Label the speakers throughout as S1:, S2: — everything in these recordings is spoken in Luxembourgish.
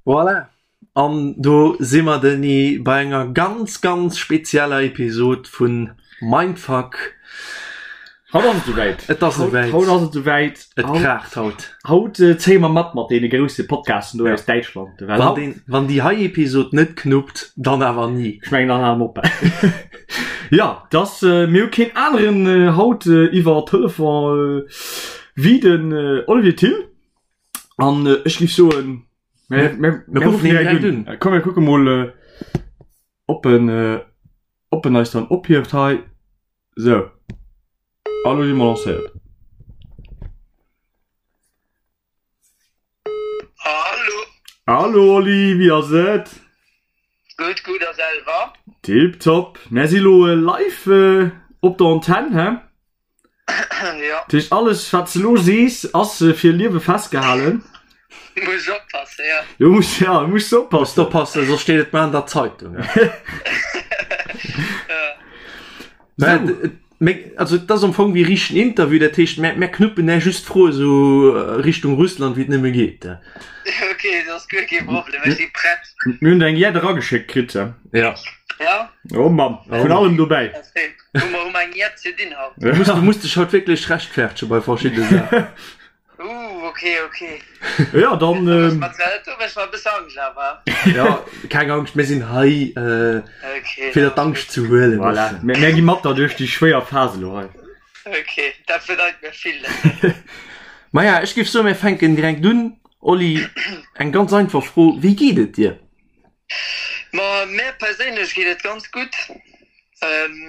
S1: Voilà, an do si mer Denis bei enger ganz ganz spezieller Episod vun Mindfuck.
S2: Haut ass et souwäit.
S1: Et ass souwäit.
S2: Haut ass et souwäit.
S1: Et kraacht haut.
S2: Haut zéie mer mat mat deene grousse Podcasten do aus Däitschland.
S1: Well haut. Wann déi hei Episod net knuppt, dann awer ni.
S2: Ech mengen, dann hale mer op. Ja, dass mir hu keen aneren haut iwwer Telefon wéi den Olivier Thill. An ech géif soen, mir, mir, mir ruffen direkt un. Komm, mir kucke mol, ob en, ob en eis dann ophieft hei. Sou, a lo si mer lancéiert.
S3: Hallo.
S2: Hallo Oli, wéi ass et?
S3: Gutt, gutt a selwer?
S2: Tiptop. Mär si lo live op der Antenn, hä?
S3: Ja.
S2: Dat heescht, alles wat s de lo sees, ass fir Liewe festgehalen.
S3: Muss oppassen, ja.
S2: Du muss, ja, du muss oppassen.
S1: Muss oppassen, soss steet et mar an der Zeitung.
S3: Ja.
S1: Also et ass am Fong wéi richtegen Interview, dat heescht mär, mär knuppen där just Froe sou Richtung Russland wéi et nëmme geet.
S3: Ok, dat ass guer kee Problem, ech si prett.
S2: Mir hunn der eng jett erageschéckt kritt.
S1: Ja.
S3: Ja?
S2: Oh Mann, vun allem dobäi.
S3: Hu mer, hu mer eng jett ze dinn haut.
S1: Du muss, du muss dech haut wierklech rechtfertege bei verschiddene Saachen.
S3: Uh, ok, ok.
S2: Ja, dann.
S3: Do mécht mer, do mécht mer e bësse Angscht awer.
S1: Ja, keng Angscht, mir sinn hei, äh,
S3: Ok.
S1: fir der d'Angscht ze huelen.
S2: Voilà. Mir, mir gi mat der duerch déi schwéier Phase elo hei.
S3: Ok, dat bedeit mir vill.
S1: Maja, ech géif soen, mir fänken direkt un. Oli, eng ganz einfach Fro, Wéi geet et dir?
S3: Ma mär perséinlech geet et ganz gutt.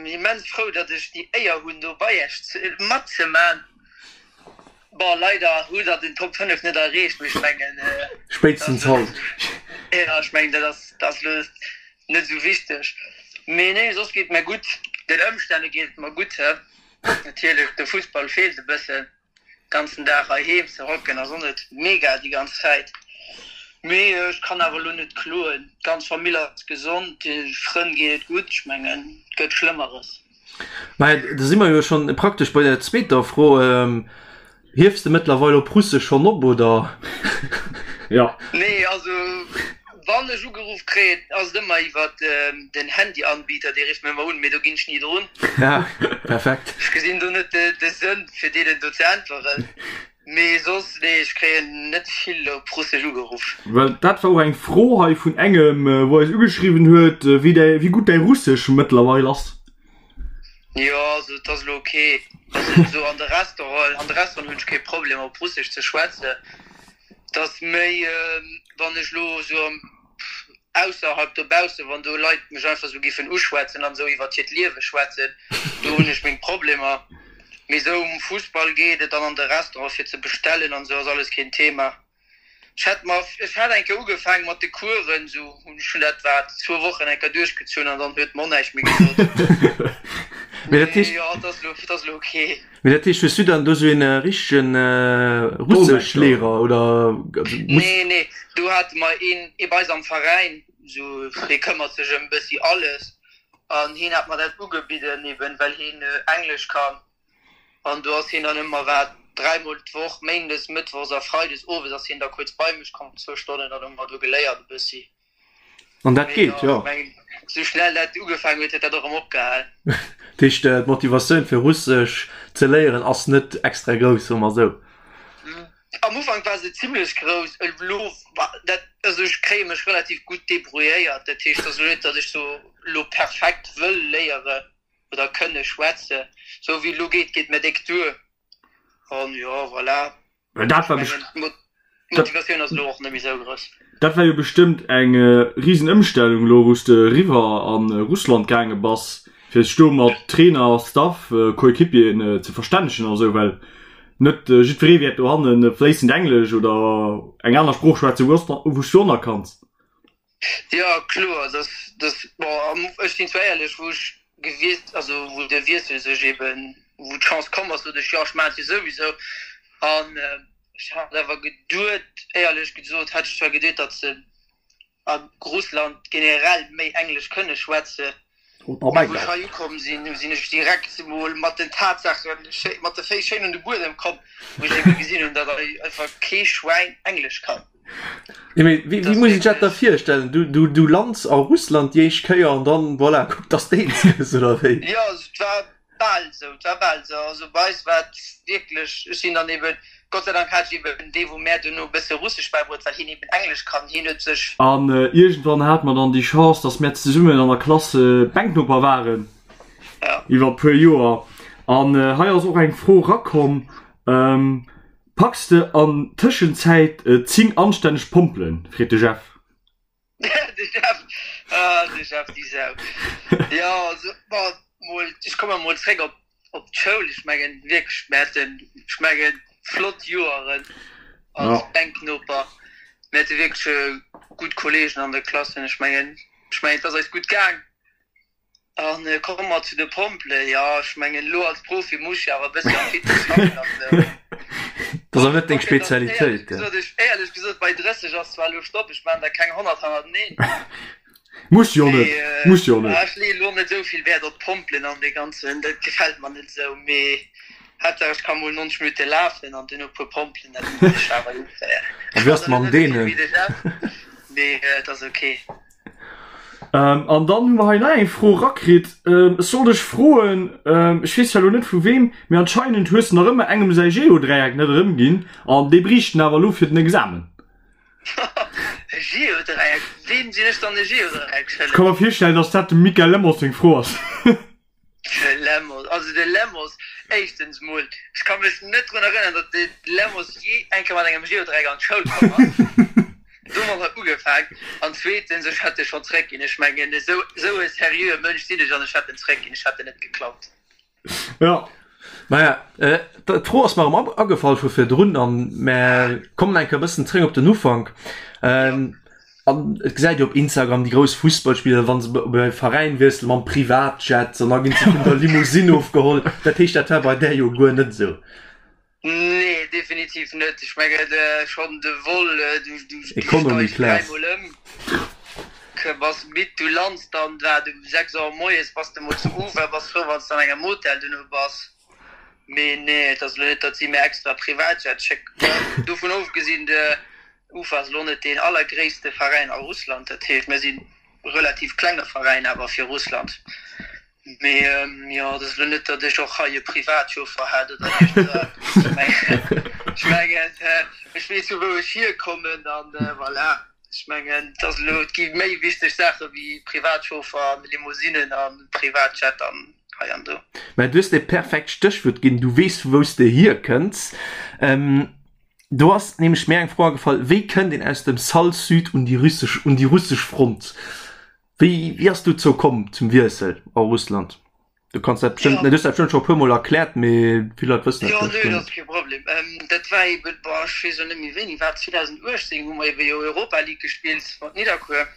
S3: Immens frou, datt ech déi Éier hunn do bei Iech matzeman. Bon, leider hutt der den Top 5 net erreecht, mee ech mengen,
S1: Spéitstens haut.
S3: Jo, ech mengen dat ass dat ass elo net esou wichteg. Mee nee, soss geet et mär gutt. Den Ëmstänne geet et mer gutt, natierlech de Fussball feelt e bëssen. Ganzen Dag heiheem ze hocken ass och net mega déi ganz Zäit, mee ech kann awer elo net kloen. D'ganz Famill ass gesond, de Frënn geet et gutt, ech mengen et gëtt Schlëmmeres.
S1: Maja, da si mer jo schonn praktesch bei der zweeter Fro. Hiefs de mëttlerweil op Russesch schonn op, oder?
S2: Jo.
S3: Nee, also Wann ech ugeruff kréien, ass et ëmmer iwwert den Handyanbieter, dee rifft mir ëmmer un, mee do ginn ech ni drun.
S1: Ja, perfekt.
S3: Ech gesinn do net de Sënn fir deenen do ze äntweren. Mee soss, nee, ech kréien net vill op Russesch ugeruff.
S2: Well dat war och eng Fro hei vun engem, wou eis ugeschriwwen huet, wéi däi, wéi gutt däi Russesch mëttlerweil ass.
S3: Jo, also et ass elo ok. Also esou an de Restaurant, an de Restauranten hunn ech kee Problem op Russesch ze schwätzen. Et ass méi, wann ech elo esou am ausserhalb dobaussen, wann do Leit mech einfach esou giffen uschwätzen an esou iwwert hiert Liewe schwätzen, do hunn ech meng Problemer. Mee esou um Fussball geet et an an de Restaurant fir ze bestellen an esou ass alles keen Thema. Ech hätt mer, ech hat eng Kéier ugefaangen mat de Coursen, esou hunn ech hunn dat wat zwou Wochen eng Kéier duerchgezunn an dann huet mer och näischt méi gesot.
S1: Mee dat
S3: Mee
S1: heescht.
S3: jo, et ass elo, et ass elo ok.
S1: Mee dat heescht, hues du dann do sou een richtegen Russeschlehrer oder muss?
S3: Nee, nee, do hate mer een ee bei eis am Veräin, sou dee këmmert sech ëm bëssi alles an hien hat mer dat ugebidden eben well hien Englesch kann an do ass hien dann ëmmer wat dräimol d'Woch, méindes, mëttwochs a freides owes ass hien da kuerz bei mech komm, zwou Stonnen, dann hu mer do geléiert e bëssi.
S1: An dat geet, jo.
S3: Sou schnell dat ugefaangen huet, huet dat och erëm opgehal.
S1: Dat heescht, d'Motivatioun fir Russesch ze léieren ass net extra grouss, soe mer esou.
S3: Am Ufank war se zimlech grouss, elo dat, also ech kréie mech relativ gutt debrouilléiert. Dat heescht, et ass elo net, datt ech sou elo perfekt wëll léiere oder kënne schwätzen. Sou wéi et elo geet, geet mir déck duer. An jo, voilà.
S2: Well dat war
S3: D'Motivatioun ass elo och net méi sou grouss.
S2: Dat war jo bestëmmt eng risen Ëmstellung elo wou s de eriwwer a Russland gaange bass, fir sech do mat Trainer, Staff, Coéquipieren ze verstännegen a sou, well net jiddweree wäert dohanne fléissend Englesch oder eng aner Sprooch schwätzen, wou s du onerkanns.
S3: Jo kloer, dass dass bon ech sinn zwar éierlech, wou ech gewiesst, also wou de Wiessel sech eben, wou d'Chance komm ass, sot ech jo ech maachen et jo souwisou an ech hat awer geduet, éierlech gesot hat ech zwar geduet, datt se a Russland generell méi Englesch kënne schwätze. Wou ech hei ukomm sinn, sinn ech direkt emol mat den Tatsaachen, mat de Féiss schéin un de Buedem komm, wou ech ebe gesinn hunn, datt hei einfach kee Schwäin Englesch kann.
S1: Jo, mee wéi, wéi muss ech dat da virstellen? Du, du, du lands a Russland déi éischt Kéier an dann, voilà, kuck, dass de eens gëss, oder wéi?
S3: Jo, et war Bal esou, et war bal esou. Also bei eis war et wierklech, ech sinn dann eben, Gott sei Dank hat ech eben dee wou mär duerno e bësse Russesch bäibruet, well hien eben Englesch kann, hien huet sech.
S2: An iergendwann hate mer dann déi Chance, dass mär zesummen an der Klass Bänknoper waren iwwer e puer Joer. An hei ass och eng Fro rakomm, Packs de an Tëschenzäit 10 anstänneg Pompelen? freet de Jeff.
S3: De Jeff, ah, de Jeff, déi Sau. Jo, also, bon, mol, ech komme mol zréck op, op d'Schoul. Ech mengen wierklech, mir haten, ech mengen, flott Joeren als ja. Bänknoper. Mir hate wierklech gutt Kolleegen an der Klass. Ech mengen, ech mengen, et ass eis gutt gaang. An komme mer zu de Pompele. Jo, ech mengen, elo als Profi muss ech jo awer e bëssi am Fitness schaffen an esou.
S1: Dat ass awer net deng Spezialitéit.
S3: Éierlech gesot, bei 30 ass zwar elo Stopp, ech maachen der keng 100 hannerteneen.
S2: Muss jo net, muss jo net.
S3: Ech leeë elo net esou vill Wäert op d'Pompelen an dee ganzen, dat gefält mer net esou. Mee Haaptsaach ech ka mol 90 Minutte lafen an duerno e puer Pompelen, dat muss ech awer hinkréien.
S1: A wéi ass et mam Deenen?
S3: Mee et ass ok.
S2: An dann hu mer hei nach eng Fro rakritt. Ech sollt dech froen, ech weess zwar elo net vu weem, mee anscheinend hues de nach ëmmer engem säi Geodräieck net erëmginn an dee bréicht en awer elo fir den Examen.
S3: E Geodräieck? Weem sinn ech dann e Geodräieck
S2: schëlleg? Ech ka mer virstellen, dass dat dem Mickaël Lemos seng Fro ass.
S3: De Lemos, also de Lemos, éischtens mol, ech ka mech net drun erënneren, datt de Lemos jee eng Kéier mat engem Geodräieck an d'Schoul komm ass. Domat huet ugefaang. An zweetens, ech hätt e schonn zréckginn. Ech mengen, esou, esou e seriöe Mënsch sinn ech an ech hätt en zréckginn. Ech hätt en net geklaut.
S1: Ja. Maja, d'Fro ass mer erëm agefall vu virdrun an mer kommen eng Kéier e bëssen zréck op den Ufank. An et gesäit ee op Instagram déi grouss Fussballspiller, wa se bei Veräin wiesselen, mam Privatjet an da ginn se vun der Limousine ofgeholl. Dat heescht, dat war bei där jo guer net esou.
S3: Nee, definitiv net. Ech mengen, schonn de Vol, du steigst dräimol ëm, bass midd, du lands dann, wat, um 6 Auer moies bass de mol zu Ufa, bass frou, wann s de an engem Hotel duerno bass. Mee nee, et ass elo net, datt si mir extra Privatjet schécken. Dovun ofgesinn, de Ufa ass elo net deen allergréisste Veräin a Russland, dat heescht mir si relativ klenge Veräin awer fir Russland. Mee jo, et ass elo net, datt ech och hei e Privatchauffer hätt oder iergendwas. Ech mengen, ech weess vu wou ech hierkommen an voilà. Ech mengen, et ass elo, et gi méi wichteg Saache wéi Privatchauffer an Limousinnen a Privatjet an hei an do.
S1: Mä du hues e perfekt Stéchwuert ginn, du weess vu wou s de hierkënns. Do ass nämlech mir eng Fro agefall, Wéi kënnt een aus dem Sall Sud un déi russesch, un déi russesch Front? Wéi, wéi ass dozou komm, zum Wiessel a Russland? Du kanns dat bestëmmt, du hues dat bestëmmt scho e puer Mol erkläert, mee vill Leit wëssen dat
S3: Jo, vläicht nee, guer dat ass net. kee Problem. Dat war eben, boah, ech weess elo net méi wéini war, 2018 hu mer eben jo Europa League gespillt mat Nidderkuer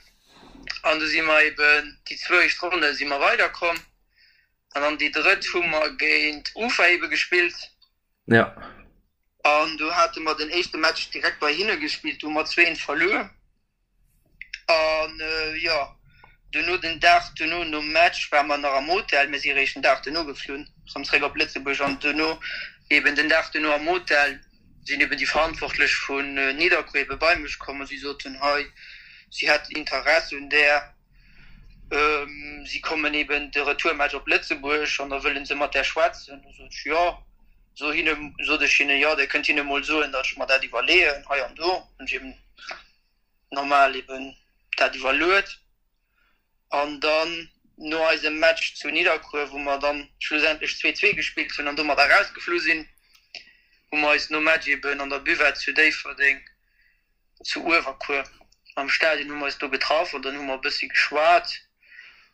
S3: an du si mer eben déi zwou éischt Ronne si mer weiderkomm an dann déi drëtt hu mer géint Ufa ebe gespillt.
S1: Ja.
S3: An do hate mer den éischte Match direkt bei hinne gespillt, do hu mer 2, 1 verluer. An jo, duerno den Dag duerno nom Match ware mer nach am Hotel, mir si réischt den Dag duerno geflunn, rëm zréck op Lëtzebuerg. An duerno eben den Dag duerno am Hotel sinn eben déi Verantwortlech vun Nidderkuer ebe bei mech komm a si soten, hei si hätten Interesse un där, si kommen eben de Retourmatch op Lëtzebuerg an da wëlle se mat där schwätzen. Du sot ech, jo. So hinne, sot ech hinne, jo, Dir kënnt hinne mol soen, datt ech mer dat iwwerleeën, hei an do. Hunn ech eben normal eben dat iwwerluet. An dann no eisem Match zu Nidderkuer, wou mer dann schlussendlech 2, 2 gespillt hunn an domat erausgeflu sinn, hu mer eis nom Match eben an der Buvette zu Déifferdeng zu Uewerkuer am Stadion hu mer eis do getraff an dann hu mer e bëssi geschwat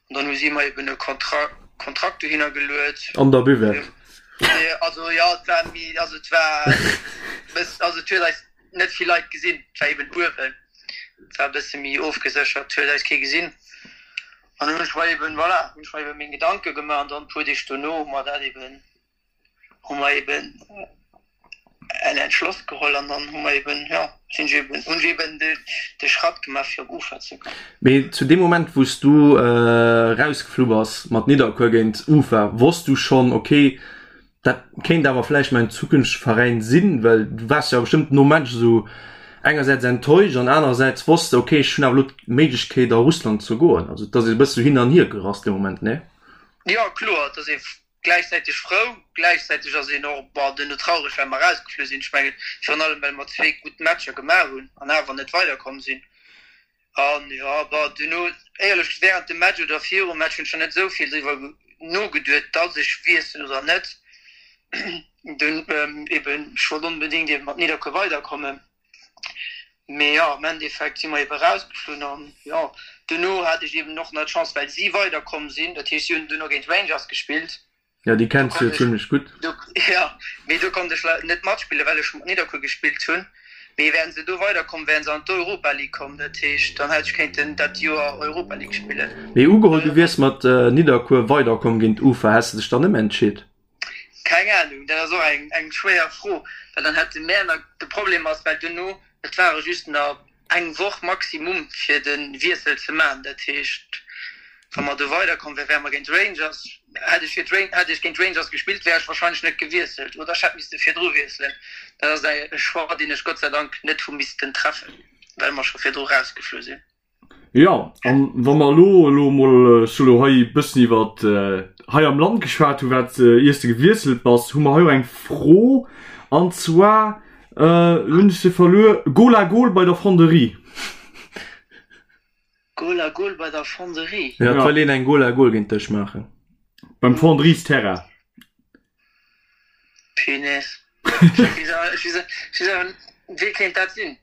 S3: an dann hu si mer eben e Kontrakt Kontrakt dohinner geluet.
S1: An der Buvette?
S3: Nee, also jo, et war méi, also et war bëss, also et huet eis net vill Leit gesinn, et war eben uewen, et war e bësse méi ofgeséchert, et huet eis kee gesinn an dann hunn ech mer eben, voilà, hunn ech mer eben meng Gedanke gemaach an dann e puer Deeg dono hu mer dat eben, hu mer eben. en Entschloss geholl an dann hu mer eben, jo, sinn ech eben, hunn ech eben de, de Schratt gemaach fir op Ufa ze goen.
S1: Mee zu deem Moment wou s du erausgeflu bass mat Nidderkuer géint Ufa, wosst du schonn, ok, dat kéint awer vläicht mäin zukünftege Veräin sinn? Well du waars jo bestëmmt nom Match esou engersäits enttäuscht an anerersäits wosst de, ok, ech hunn awer elo d'Méiglechkeet a Russland ze goen. Also et ass e bësse sou hin an hier gerass dee Moment, nee?
S3: Jo, kloer, et ass ee Gläichzäiteg frou, gläichzäiteg ass een och, bon, duerno traureg, well mer erausgeflu sinn. Ech mengen, virun allem, well mer zwee gutt Matcher gemaach hunn an awer net weiderkomm sinn. An jo, bon, duerno, éierlech, wärend dem Match oder virum Match hunn ech nach net esou vill driwwer nogeduet, dass ech wiesselen oder net. Dunn eben, ech wollt onbedéngt eben mat Nidderkuer weiderkommen. Mee jo, am Endeffekt si mer ebe rausgeflunn an jo, duerno hat ech eben och nach d'Chance, well si weiderkomm sinn, dat heescht si hunn duerno géint Rangers gespillt.
S1: Jo, déi kenns du jo zimlech gutt.
S3: Jo, mee do konnt ech leider net matspillen, well ech mat Nidderkuer gespillt hunn. Mee wären se do weiderkomm, wären se an d'Europa League komm, dat heescht dann hätt ech kéinten dat Joer Europa League spillen.
S1: Mee ugeholl, du wiers mat Nidderkuer weiderkomm géint Ufa, häss de dech dann ëmentscheet?
S3: Keng Ahnung, dat ass och eng eng schwéier Fro, well dann hätte mär nach, de Problem ass, well duerno, et ware just nach eng Woch maximum fir de Wiessel ze maachen, dat heescht wa mer do weiderkomm wären, wäre mer géint Rangers, hätt ech fir d'Ran, hätt ech géint Rangers gespillt, wär ech wahrscheinlech net gewiesselt oder ech hätt misste virdru wiesselen. Dat ass e Choix, deen ech Gott sei Dank net hu missten treffen, well mer scho virdru rausgeflu sinn.
S2: Jo, an wa mer elo elo emol, ech hu elo hei e bëssen iwwer hei am Land geschwat hu wat iers de gewiesselt bass, hu mer hei och eng Fro an zwar, elo hunn ech se verluer, Goal à goal bei der Fonderie.
S3: Goal à goal bei der Fonderie?
S1: Jo, et wëll een eng Goal à goal géint dech maachen.
S2: Beim Fonderiesteerrain.
S3: Punaise. Wee kéint dat sinn?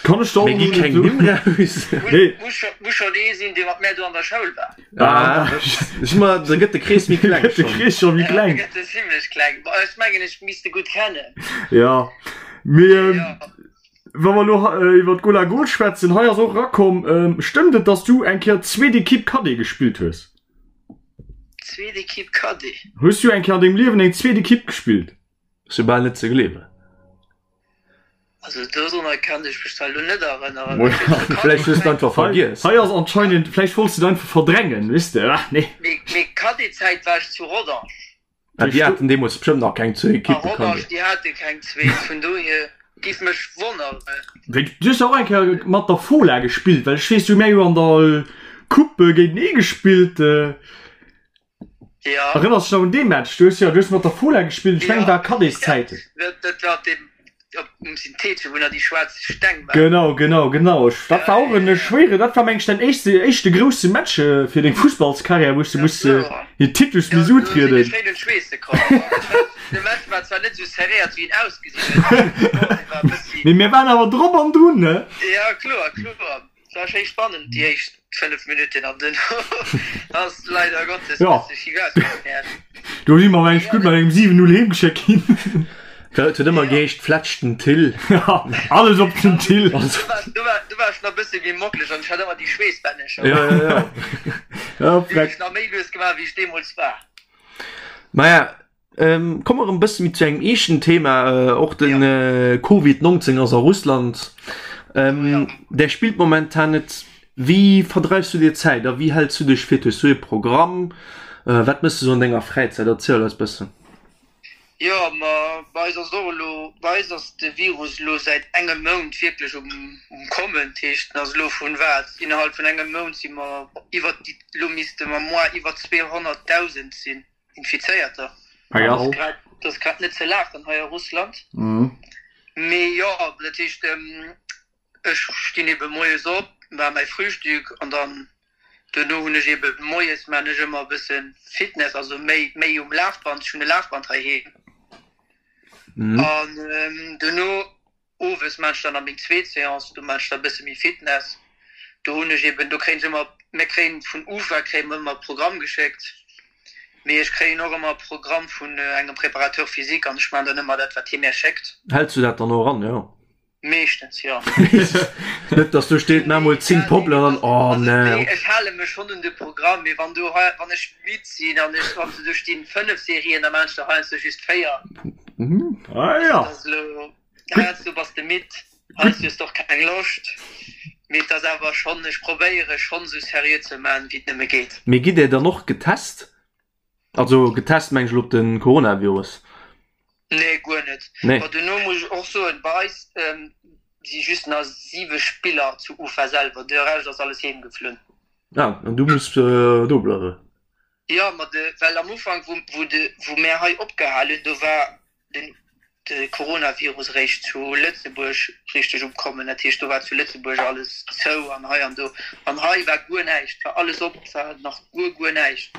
S2: Kann ech der
S1: Mir gi keng Nimm raus.
S2: Nee.
S3: Muss schonn ee sinn, dee mat mär do an der Schoul war.
S1: Ah, ech ma, da gëtt de Krees méi kleng
S2: Gëtt de Krees scho méi kleng.
S3: Ja, gëtt e zimlech kleng. Bon, ech mengen, ech misst e gutt kennen.
S2: Ja, mee wa mer elo iwwer d'Goal à Goal schwätzen, hei ass och erakomm, stëmmt et, dass du eng Kéier zweet Equipe Cadet gespillt hues?
S3: Zweet Equipe Cadet.
S2: Hues du eng Kéier an dengem Liewen eng zweet Equipe gespillt?
S1: Ass jo bal net ze gleewen.
S3: Also dorunner kann ech mech zwar elo net erënneren.
S1: Vläicht hues de einfach vergiess.
S2: Hei ass anscheinend, vläicht wollts de et einfach verdrängen, weess de? Ach nee.
S3: Mee Cadet-Zäit war ech zu Rodange.
S1: Ah, déi haten deemools bestëmmt nach keng zwee Equippen.
S3: A Rodange, déi hate keng zweet, vun dohier giff mech wonneren.
S2: Du hues jo och eng Kéier mat der Fola gespillt, well ech weess, du hu mär jo an der Coupe géintenee gespillt.
S3: Ja.
S2: Erënners dech nach un dee Match? Du hues jo, du hues mat der Fola gespillt, ech mengen et war Cadetszäiten.
S3: Dat war dee Op um Synthetische, wou nach déi schwaarz Steng
S2: waren. Genau, genau, genau. Ech, dat war och en schwéieren, dat war meng ech däin éischte, éischte grousse Match fir deng Fussballskarriär, wou s de muss hir Titus
S3: Ja,
S2: miss
S3: do sinn
S2: utrieden.
S3: ech schéin un d'Schweesse komm. De Match war zwar net esou serréiert, wéi en ausgesinn huet, mee bon, dee war e bëssi.
S2: Mee mir waren awer drop an drun, ne?
S3: Ja, kloer, kloer. Et war schéi spannend déi éischt 5 Minutten an duerno ass leider Gottes
S2: Ja.
S3: bësse schief ausgegangen.
S2: Do si mer mengt gutt mat engem 7, 0 heem geschéckt ginn.
S1: Et huet ëmmer geheescht, Flätsch den Till.
S2: Ja, alles op den Till.
S3: Do war, do war, do war ech nach bësse méi mocklech an ech hat ëmmer déi Schweessbännecher.
S1: Ja, ja, ja.
S2: Ja,
S3: Déi hunn
S2: freck.
S3: ech nach méi lues gemaach, wéi ech deemools war.
S1: Maja, Komme mer erëm bësse méi zu engem eeschten Thema, och de Covid 19 ass a Russland. Där spillt momentan net. Wéi verdreifs du dir d'Zäit a wéi häls du dech fit? Hues du ee Programm? Wat méchs du sou an denger Fräizäit? Erziel eis bëssen.
S3: Jo, ma bei eis ass et och elo, bei eis ass de Virus elo säit engem Mount wierklech um Kommen. Dat heescht, en ass elo vun wat, innerhalb vun engem Mount si mer iwwer déi, elo misste mer moi iwwer 200.000 sinn. Infizéierter.
S2: Ah ja.
S3: Dat ass grad net ze laachen hei a Russland. Mee jo, dat heescht, ech stinn ebe moies op, maache mäi Frühstück an dann duerno hunn ech ebe moies maachen ech ëmmer e bësse Fitness, also méi, méi um Lafband. Ech hunn e Lafband heiheem. An duerno Owes maan ech dann nach meng zweet Seance, do maan ech da bësse méi Fitness. Do hunn ech eben, do kréien ech ëmmer, mir kréien vun UFA kréie mer ëmmer e Programm geschéckt, mee ech kréien och ëmmer e Programm vun engem Préparateur physique an ech maan dann ëmmer dat wat hie mär schéckt.
S1: Häls du dat dann och an, jo?
S3: Meeschtens, jo.
S1: Net dass do steet, maa mol 10 Pompelen an dann, oh nee.
S3: Nee, ech hale mech schonn un de Programm, mee wann do hei, wann ech midd sinn an ech, wann do stinn 5 Serien, da maan ech der heiansdo just 4.
S2: Ah ja.
S3: Heiansdo bass de midd, heiansdo hues de och keng Loscht, mee et ass awer schonn, ech probéiere schonn esou seriö ze man wéi et nëmme geet.
S1: Mee gitt Där dann och getest? Also getest meng ech elo op de Coronavirus.
S3: Nee, guer net.
S1: Nee.
S3: Ma duerno muss ech och soen, bei eis si just nach 7 Spiller zu Ufa selwer, de Rescht ass alles heem geflunn.
S1: Ah, an du muss do bleiwen?
S3: Jo, ma de, well am Ufank wou, wou de, wou mär hei opgehal hunn, do war den de Coronavirus eréischt zu Lëtzebuerg richteg um kommen. Dat heescht, do war zu Lëtzebuerg alles zou an hei an do. An hei war guer näischt, war alles op, war nach guer, guer näischt.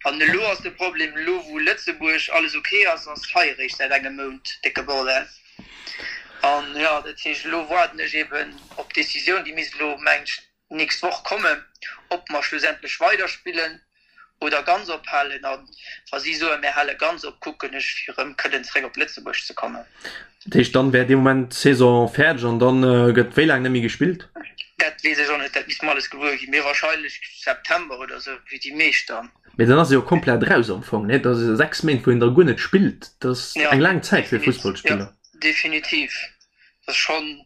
S3: An elo ass de Problem, elo wou Lëtzebuerg alles ok ass, ass hei eréischt säit engem Mount décke Bordell. An jo, dat heescht, elo waarden ech eeben op d'Decisioun, déi misst elo, mengen ech, nächst Woch kommen, ob mer schlussendlech weiderspillen oder ganz ophalen. A wa si soen, mir hale ganz op, kucken ech, fir erëm kënnen zeréck op Lëtzebuerg ze kommen.
S1: Dat heescht, dann wär dee Moment d'Saison fäerdeg an dann gëtt wéi laang net méi gespillt?
S3: Dat weess ech och net, dat misste mer alles gewuer ginn. Mee wahrscheinlech September oder esou, wéi déi meescht dann.
S1: Mee dann ass e jo komplett raus am Fong, nee? Dat ass 6 Méint, wou een da guer net spillt. Dat ass eng laang Zäit fir e Fussballspiller.
S3: Jo, definitiv. Dat ass schonn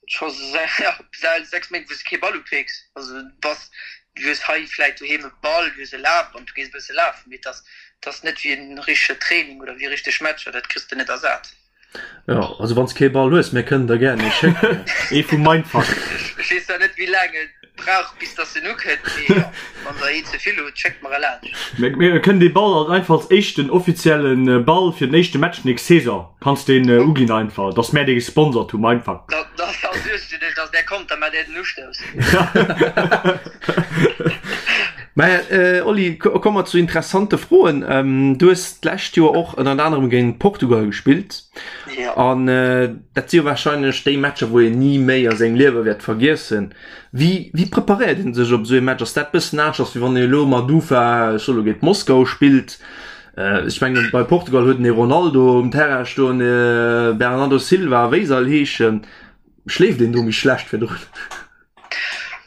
S3: Scho säit 6 Méint wou s de kee Ball upécks. Also du bass, du hues hei vläit doheem e Ball, du hues e Lafband, du gees e bësse lafen, mee et ass, et ass net wéi en richtege Training oder wéi richteg Matcher, dat kriss de net ersat.
S1: Jo, also wann s kee Ball hues, mir kënnen der gären ee schécken.
S2: Ee vu Mindfuck.
S3: Ech weess zwar net wéi laang et brauch bis dass en ukënnt, mee jo, wann der een ze vill hutt, schéckt mer e laanscht.
S2: Mir kënnen dee Ball alt einfach als éischten offizielle Ball fir den éischte Match nächst Saison kanns deen uginn einfach, dass mär dee gesponsert hu Mindfuck.
S3: Da suerge dech dass där kommt, da maacht där den Ustouss.
S1: Mä Oli, komme mer zu interessante Froen. Du hues d'lescht Joer och ënnert anerem géint Portugal gespillt an dat si jo warscheinlech déi Matcher, wou een ni méi a sengem Liewe wäert vergiessen. Wéi wéi preparéiert een sech op esou ee Match? Ass dat bëssen aneschters wéi wann een elo mat Ufa, ech soe lo, géint Moskau spillt? Ech mengen bei Portugal huet en ee Ronaldo um Terrain stoen, ee Bernardo Silva, wéi se all heeschen. Schléift een do méi schlecht virdrun?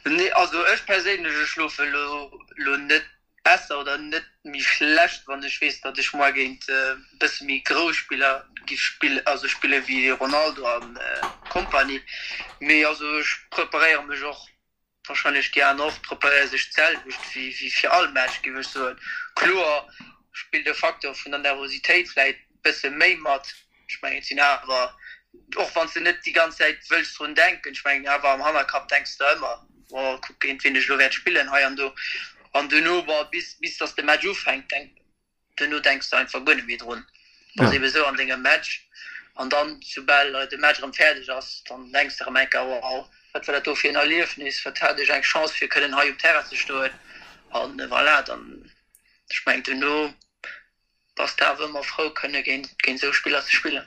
S3: Nee, also ech perséinlech, ech schlofe lo lo net besser oder net méi schlecht, wann ech weess, datt ech moar géint e bësse méi grouss Spiller giff spillen, also spille wéi Ronaldo a Kompanie. Mee also ech preparéiere mech och, warscheinlech déi aner och, preparéiere sech d'selwecht wéi wéi fir all Match, giff ech soen. Kloer spillt de Facteur vun der Nervositéit vläit bësse méi mat, Ech mengen, et sinn awer, och wann s de net déi ganz Zäit wëlls drun denken, ech mengen awer am Hannerkapp denks de ëmmer, oh kuck géint wien ech elo wäert spillen hei an do. An duerno, bon, bis, bis datt de Match ufänkt, denk, duerno denks de einfach guer net méi drun. Bass ebe sou an dengem Match an dann, soubal de Match erëm fäerdeg ass, dann denks de erëm eng Kéier, wow, wat war dat do fir en Erliefnis, wat hat ech eng Chance fir kënnen hei um Terrain ze stoen. An voilà, dann, ech mengen duerno Bass de awer ëmmer frou kënne géint esou Spiller ze spillen.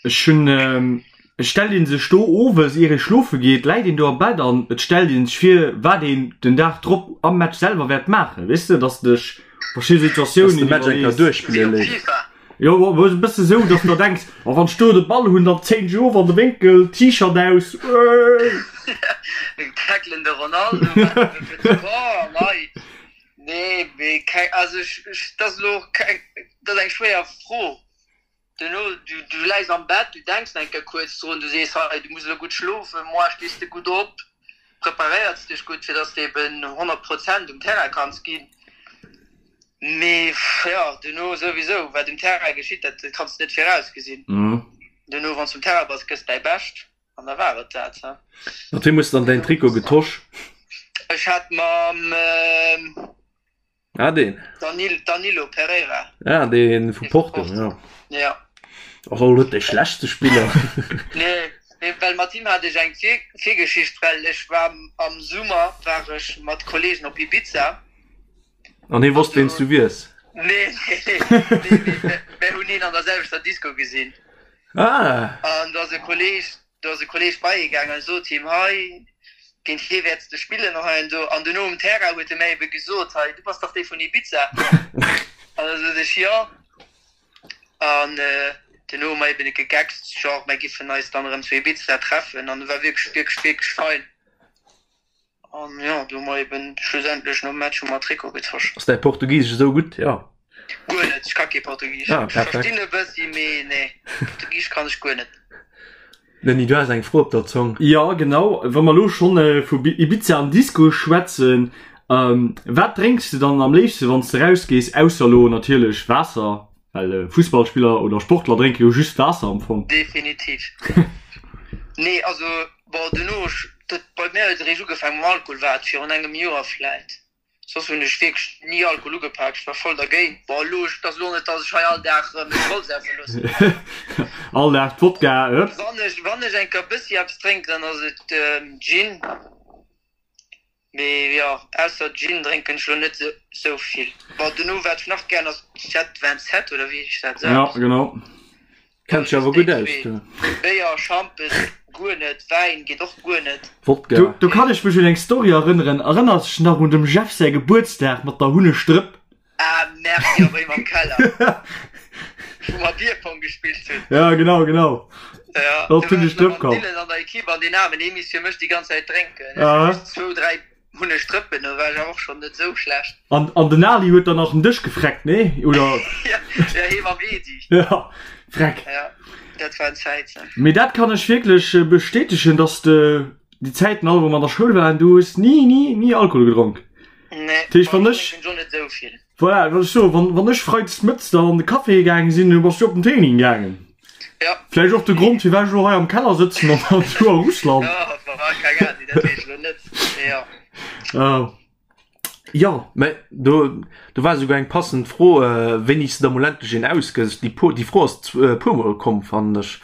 S2: Ech hunn, et stellt een sech do owes ier ee schlofe geet, läit een do am Bett an et stellt een sech vir wat een den Dag drop am Match selwer wäert maachen, weess de, dass de dech verschidde Situatiounen iwwerlees.
S3: Wéi op FIFA.
S2: Jo, e bësse sou, dass de der denks, oh wann ech do de Ball hunn, dann zéien ech of an de Wénkel, T-Shirt aus,
S3: eeii. Tackelen de Ronaldo, wat fir de Corps an hei. Nee, mee keng, also ech, ech, dat ass elo och keng, dat ass eng schwéier Fro. Duerno, du, du läis am Bett, du denks eng Kéier kuerz drun, du sees, hei, du muss elo gutt schlofen, moar stees de gutt op, preparéiers dech gutt, fir dass de eben 100 Prozent um Terrain kanns ginn. Mee jo, duerno souwisou, wat um Terrain geschitt, dat kanns de net virausgesinn. Duerno, wann s de um Terrain bass, gëss däi Bescht. An da war et dat, he.
S1: Mat weem hues de dann däin Trikot getosch?
S3: Ech hat mam
S1: Ah, deen.
S3: Danilo Pereira.
S1: Ah, dee vu Porto, jo.
S3: Ja.
S1: Ass och net dee schlechtste Spiller.
S3: Nee, nee, well mat him hat ech eng Virgeschicht, well ech war am Summer war ech mat Kollegen op Ibiza.
S1: An hie wosst, ween s du wiers?
S3: Nee, nee, nee, nee, mir hunn hien an der selwechter Disco gesinn.
S1: Ah!
S3: An do ass e Kolleg, do ass e Kolleg bei hie gaangen an sot him, hei, géint hie wäerts de spillen an hei an do. An duerno um Terrain huet e mär ebe gesot, hei, du bass dach dee vun Ibiza? An da sot ech, jo. An duerno hu mer eben gegeckst, genre, mär giffen eis dann erëm zu Ibiza treffen. An e war wierklech, wierklech, wierklech fein. An jo, do hu mer eben schlussendlech nom Match hu mer Trikot getosch.
S1: Ass däi Portugisesch esou gutt? Jo.
S3: Guer net, ech ka kee Portugisesch. Ah, perfekt. Ech verstinn e bëssi, mee nee, Portugisesch kann ech guer net.
S1: Denis, du has eng Fro op der Zong.
S2: Jo, genau. Wa mer elo schonn vu Ibiza an Disco schwätzen, wat drénks de dann am léifste wann s de rausgees, ausser elo natierlech Waasser, well Fussballspiller oder Sportler drénke jo just Waasser am Fong.
S3: Definitiv. Nee, also bon, duerno, dat bei mär huet et eréischt ugefaangen mam Alkohol, war et virun engem Joer vläit. Soss hunn ech wierklech ni Alkohol ugepak, ech war voll dergéint. Bon elo, et ass elo net dass ech hei all Dag mech voll saufe loossen.
S2: All Dag Wodka,
S3: hëpp. Wann ech, wann ech eng Kéier bëssi eppes drénken, dann ass et Gin. Mee jo, ausser Gin drénken ech elo net esou vill. Bon dono wat ech nach gären ass Jet 27 oder wéi heescht dat
S2: esou? Ja, genau.
S1: Kenns dech awer gutt aus du.
S3: Béier, Schampes guer net, Wäin geet och guer net.
S2: Wodka. Do, do kann ech mech un eng Story erënneren. Erënners dech nach un dem Jeff säi Gebuertsdag mat der Hunnestrëpp?
S3: Ah merci, jo bei him am Keller, wou mer Bierpong gespillt hunn.
S2: Ja genau, genau.
S3: Ja, do war ech nach mam Dylan an der Equipe an deen aarmen, dee misst fir mech déi ganz Zäit drénken. Ech hunn just zwou, dräi Hun ech Drëppen, do war ech awer och schon net sou schlecht.
S2: An, an den Ali huet dann nach den Dësch gefreckt, nee? Oder?
S3: Ja, ja, hee mam Edi.
S2: Ja, freck.
S3: Ja, dat waren Zäiten.
S2: Mee dat kann ech wierklech bestätegen, dass de déi Zäiten all, wou mer an der Schoul waren, du hues ni, ni, ni Alkohol gedronk.
S3: Nee,
S2: Dat heescht, wann ech.
S3: Ech net sou vill.
S2: Voilà, wat ech soen, wann, wann ech freides mëttes dann an de Café gaange sinn, du bass du op den Training gaangen.
S3: Ja.
S2: Vläicht och de Grond, firwat ech elo hei am Keller sëtzen an an du a Russland.
S3: Ja, war keng Ahnung, dat weess ech elo net. Mee ja.
S2: Ah.
S1: Jo, mä do, do war esouguer eng passend Fro, wéini s de da mol endlech een ausgëss. Déi, déi Fro ass e puermol komm, fannen ech.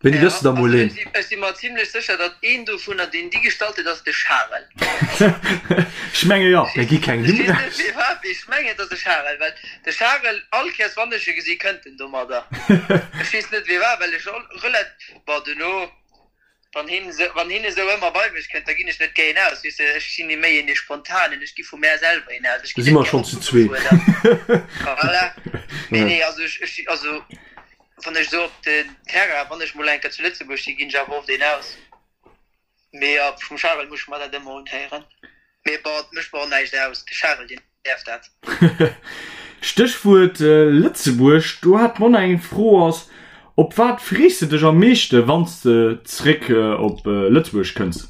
S1: Wéini gëss de da mol een?
S3: Ech si mer zimlech sécher, datt een dovunner, deen déi gestallt huet, ass de Charel.
S2: Ech menge jo.
S1: Mir gi keng
S3: Nimm raus. Ech mengen, et ass de Charel, well de Charel, all Kéiers wann ech e gesi, kënnt en domadder. Ech weess net firwat, well ech relat, bon, duerno, wann hien esou, wann hien esou ëmmer bei mech kënnt, da ginn ech net géi een aus, weess de. Ech sinn méi een dee Spontanen, ech gi vu mär selwer een aus, ech
S1: ginn net gär opgefuerdert.
S3: Voilà. Nee, nee, also ech, ech, also. Wann ech esou op den Terrain, wann ech mol eng Kéier zu Lëtzebuerg sinn, ginn ech awer oft een aus. Mee jo, vum Charel muss ech mer dat ëmmer unhéieren. Mee bon, et mécht mer och näischt aus, de Charel, deen däerf dat.
S2: Stéchwuert Lëtzebuerg, do hat d'Mona eng Fro, ass, Op wat frees de dech am meeschte wann s de zréck op Lëtzebuerg kënns?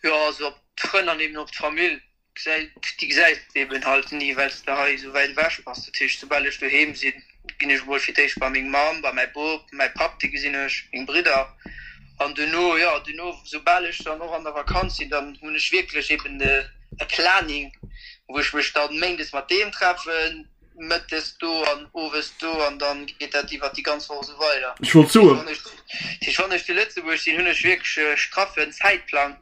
S3: Jo, also op d'Frënn an eben op d'Famill. Déi gesäis de eben halt ni, well s de hei esou wäit ewech bass. Dat heescht, soubal ech doheem sinn, ginn ech emol fir d'éischt bei meng Mamm, bei mäi Bop, mäi Papp, dee gesinn ech, meng Bridder. An duerno, jo, duerno, soubal ech dann och an der Vakanz sinn, dann hunn ech wierklech eben e Planning, wou ech mech dann méindes mat deem treffen, mëttes do an owes do an dann geet dat iwwert déi ganz Woch esou weider.
S2: Ech wollt soen.
S3: Dat heescht, wann ech zu Lëtzebuerg sinn, hunn ech wierklech e straffen Zäitplang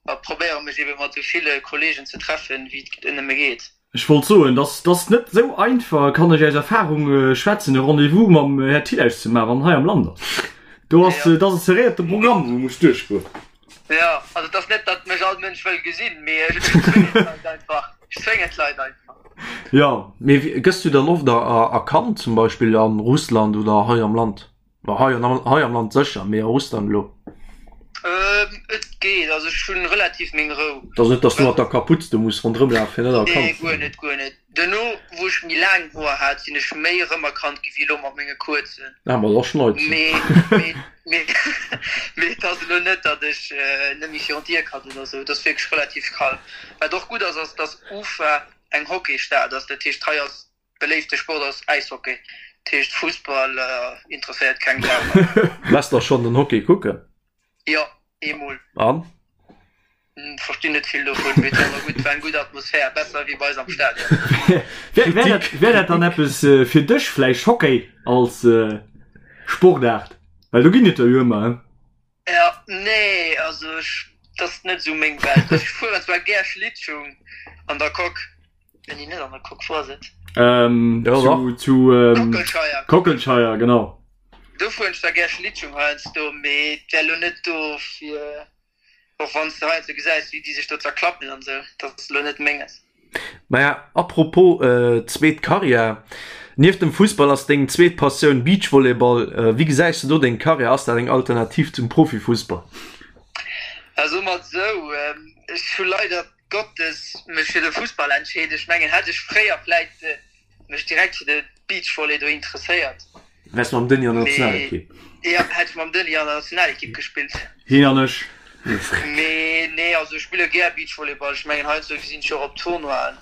S3: a probéiere mech ebe mat esou ville Kollegen ze treffen, wéi et nëmme geet.
S2: Ech wollt soen, dass dass net esou einfach, kann ech aus Erfahrung schwätzen, e Rendez-vous mam Här Thill auszemaachen, wann en hei am Land ass. Do ass, dat ass e serréierte Programm, wou e muss duerchgoen.
S3: Jo, also et ass net, datt mech all Mënsch wëll gesinn, mee ech zwéngen d'Leit einfach. Ech zwéngen d'Leit einfach.
S2: Jo.
S1: Mee gëss du dann oft erkannt, zum Beispill a Russland oder hei am Land? Bon, hei an hei am Land sécher, mee a Russland elo?
S3: Et geet, also ech hunn relativ meng Rou.
S1: Et ass net, datt s du mat der Kaputz do muss ronderëm lafen, fir net erkannt
S3: ze ginn? Nee, guer net, guer net. Duerno, wou ech méi laang Hoer hat, sinn ech méi erëmerkannt gi wéi elo mat menge kuerzen.
S1: Ah, ma da schneit se.
S3: Mee, mee, mee, mee et ass elo net, datt ech net méi virun d'Dier kann oder esou. Et ass wierklech relativ kalm. Wat och gutt ass, ass, datt Ufa eng Hockeystad ass. Dat heescht, hei ass beléifte Sport ass Äishockey. Dat heescht, Fussball interesséiert keng Sau
S1: hei. Wars der schonn den Hockey kucken?
S3: Jo, eemol.
S1: An?
S3: Verstinn net vill dovun, mee et war awer gutt, war eng gutt Atmosphär, besser wéi bei eis am Stadion.
S2: Wär dat, wär dat dann eppes fir dech vläicht, Hockey als Sportaart? Well do ginn et der jo ëmmer, he?
S3: Ja, nee, also ech, dat ass net esou meng Welt. Ech fueren zwar gär Schlittschung an der Coque, nee, net an der Coque, wou ass et?
S2: Ähm,
S1: Ja,
S2: zu,
S1: dach.
S2: zu ähm,
S3: Kockelscheier.
S2: Kockelscheier, genau.
S3: Do fueren ech zwar gär Schlittschung heiansdo, mee et wär elo net do fir. Och wann s de heiansdo gesäis, wéi déi sech do zerklappen an esou, dat ass elo net menges.
S1: Maja, apropos zweet Karriär, Nieft dem Fussball ass deng zweet Passioun Beachvolleyball. Wéi gesäis de do deng Karriär? Ass dat eng Alternativ zum Profifussball?
S3: Soe mer et esou, ech hu leider Gottes mech fir de Fussball entscheet. Ech mengen, hätt ech fréier vläit. mech direkt fir de Beachvolley do interesséiert.
S1: Wäers mam Denis an der Nationalekipp?
S3: Jo, hätt ech mam Denis an der Nationalekipp gespillt.
S2: Hien an ech.
S3: Mee nee, also ech spille gär Beachvolleyball. Ech mengen heiansdo gesinn ech och op Tournoien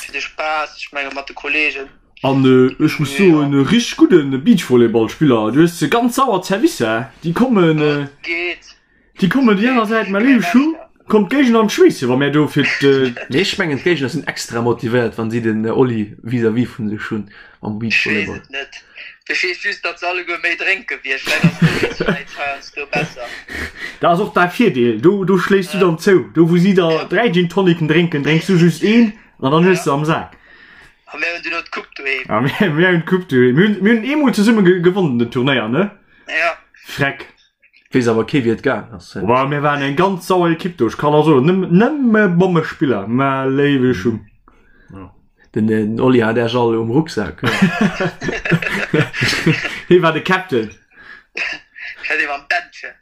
S3: fir de Spaass, ech menge mat de Kollegen.
S2: An ech muss soen, e richteg gudde Beachvolleyballspiller. Du hues ganz sauer Zerwisser, déi kommen.
S3: Geet.
S2: Déi kommen déi aner Säit, mä léiwe Schu, kommt d'Géigner an d'Schweesse wa mär do fir d'.
S1: Nee, ech mengen d'Géigner sinn extra motivéiert wann si den Oli vis-à-vis vun sech hunn am
S3: Beachvolleyball. Ech weess et net, ech weess just datt se alleguer méi drénke wéi ech, vläit ass dowéinst vläit heiansdo besser.
S2: Dat ass och däi Virdeel, do do schléiss du dann zou, do wou si der 3 Gin Tonicen drénken, drénks du just een an dann hues de am Sak.
S3: A mär hunn duerno d'Coupe doheem.
S2: A mär hunn d'Coupe doheem. Mir hunn mir hunn eemol zesumme gewonnen den Turnéier, ne?
S3: Ja.
S2: Freck.
S1: Weess awer kee wéi et gaang ass.
S2: Boah, mir waren eng ganz sauer Ekipp do, ech kann der soen, nëmme, nëmme Bommespiller, mä léiwe Schung.
S1: Den, den Oli hat Äech all um Rucksak.
S2: Hie war de Captain.
S3: Hat ee mam Bändchen.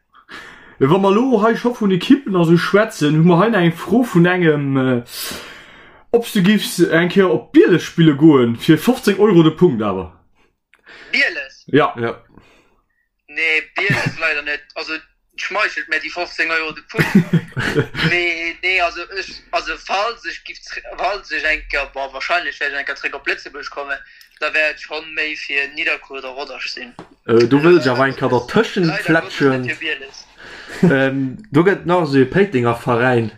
S2: Wa mer elo hei scho vun Ekippen a sou schwätzen, hu mer hei nach eng Fro vun engem, ob s du giffs eng Kéier op Bieles spille goen, fir 15 Euro de Punkt awer.
S3: Bieles?
S2: Ja.
S1: Ja.
S3: Nee, Bieles leider net. Also et schmeichelt mär déi 15 Euro de Punkt. Mee nee, also ech, also falls ech giff, falls ech eng Kéier, bon wahrscheinlech wäert ech eng Kéier zréck op Lëtzebuerg kommen, da wäert et schonn méi fir Nidderkuer oder Rodange sinn.
S1: Do wëll ech awer eng Kéier dertëschent
S3: Leider Gottes net
S1: fletschen.
S3: fir Bieles.
S1: Do gëtt nach esou e Péitenger Veräin,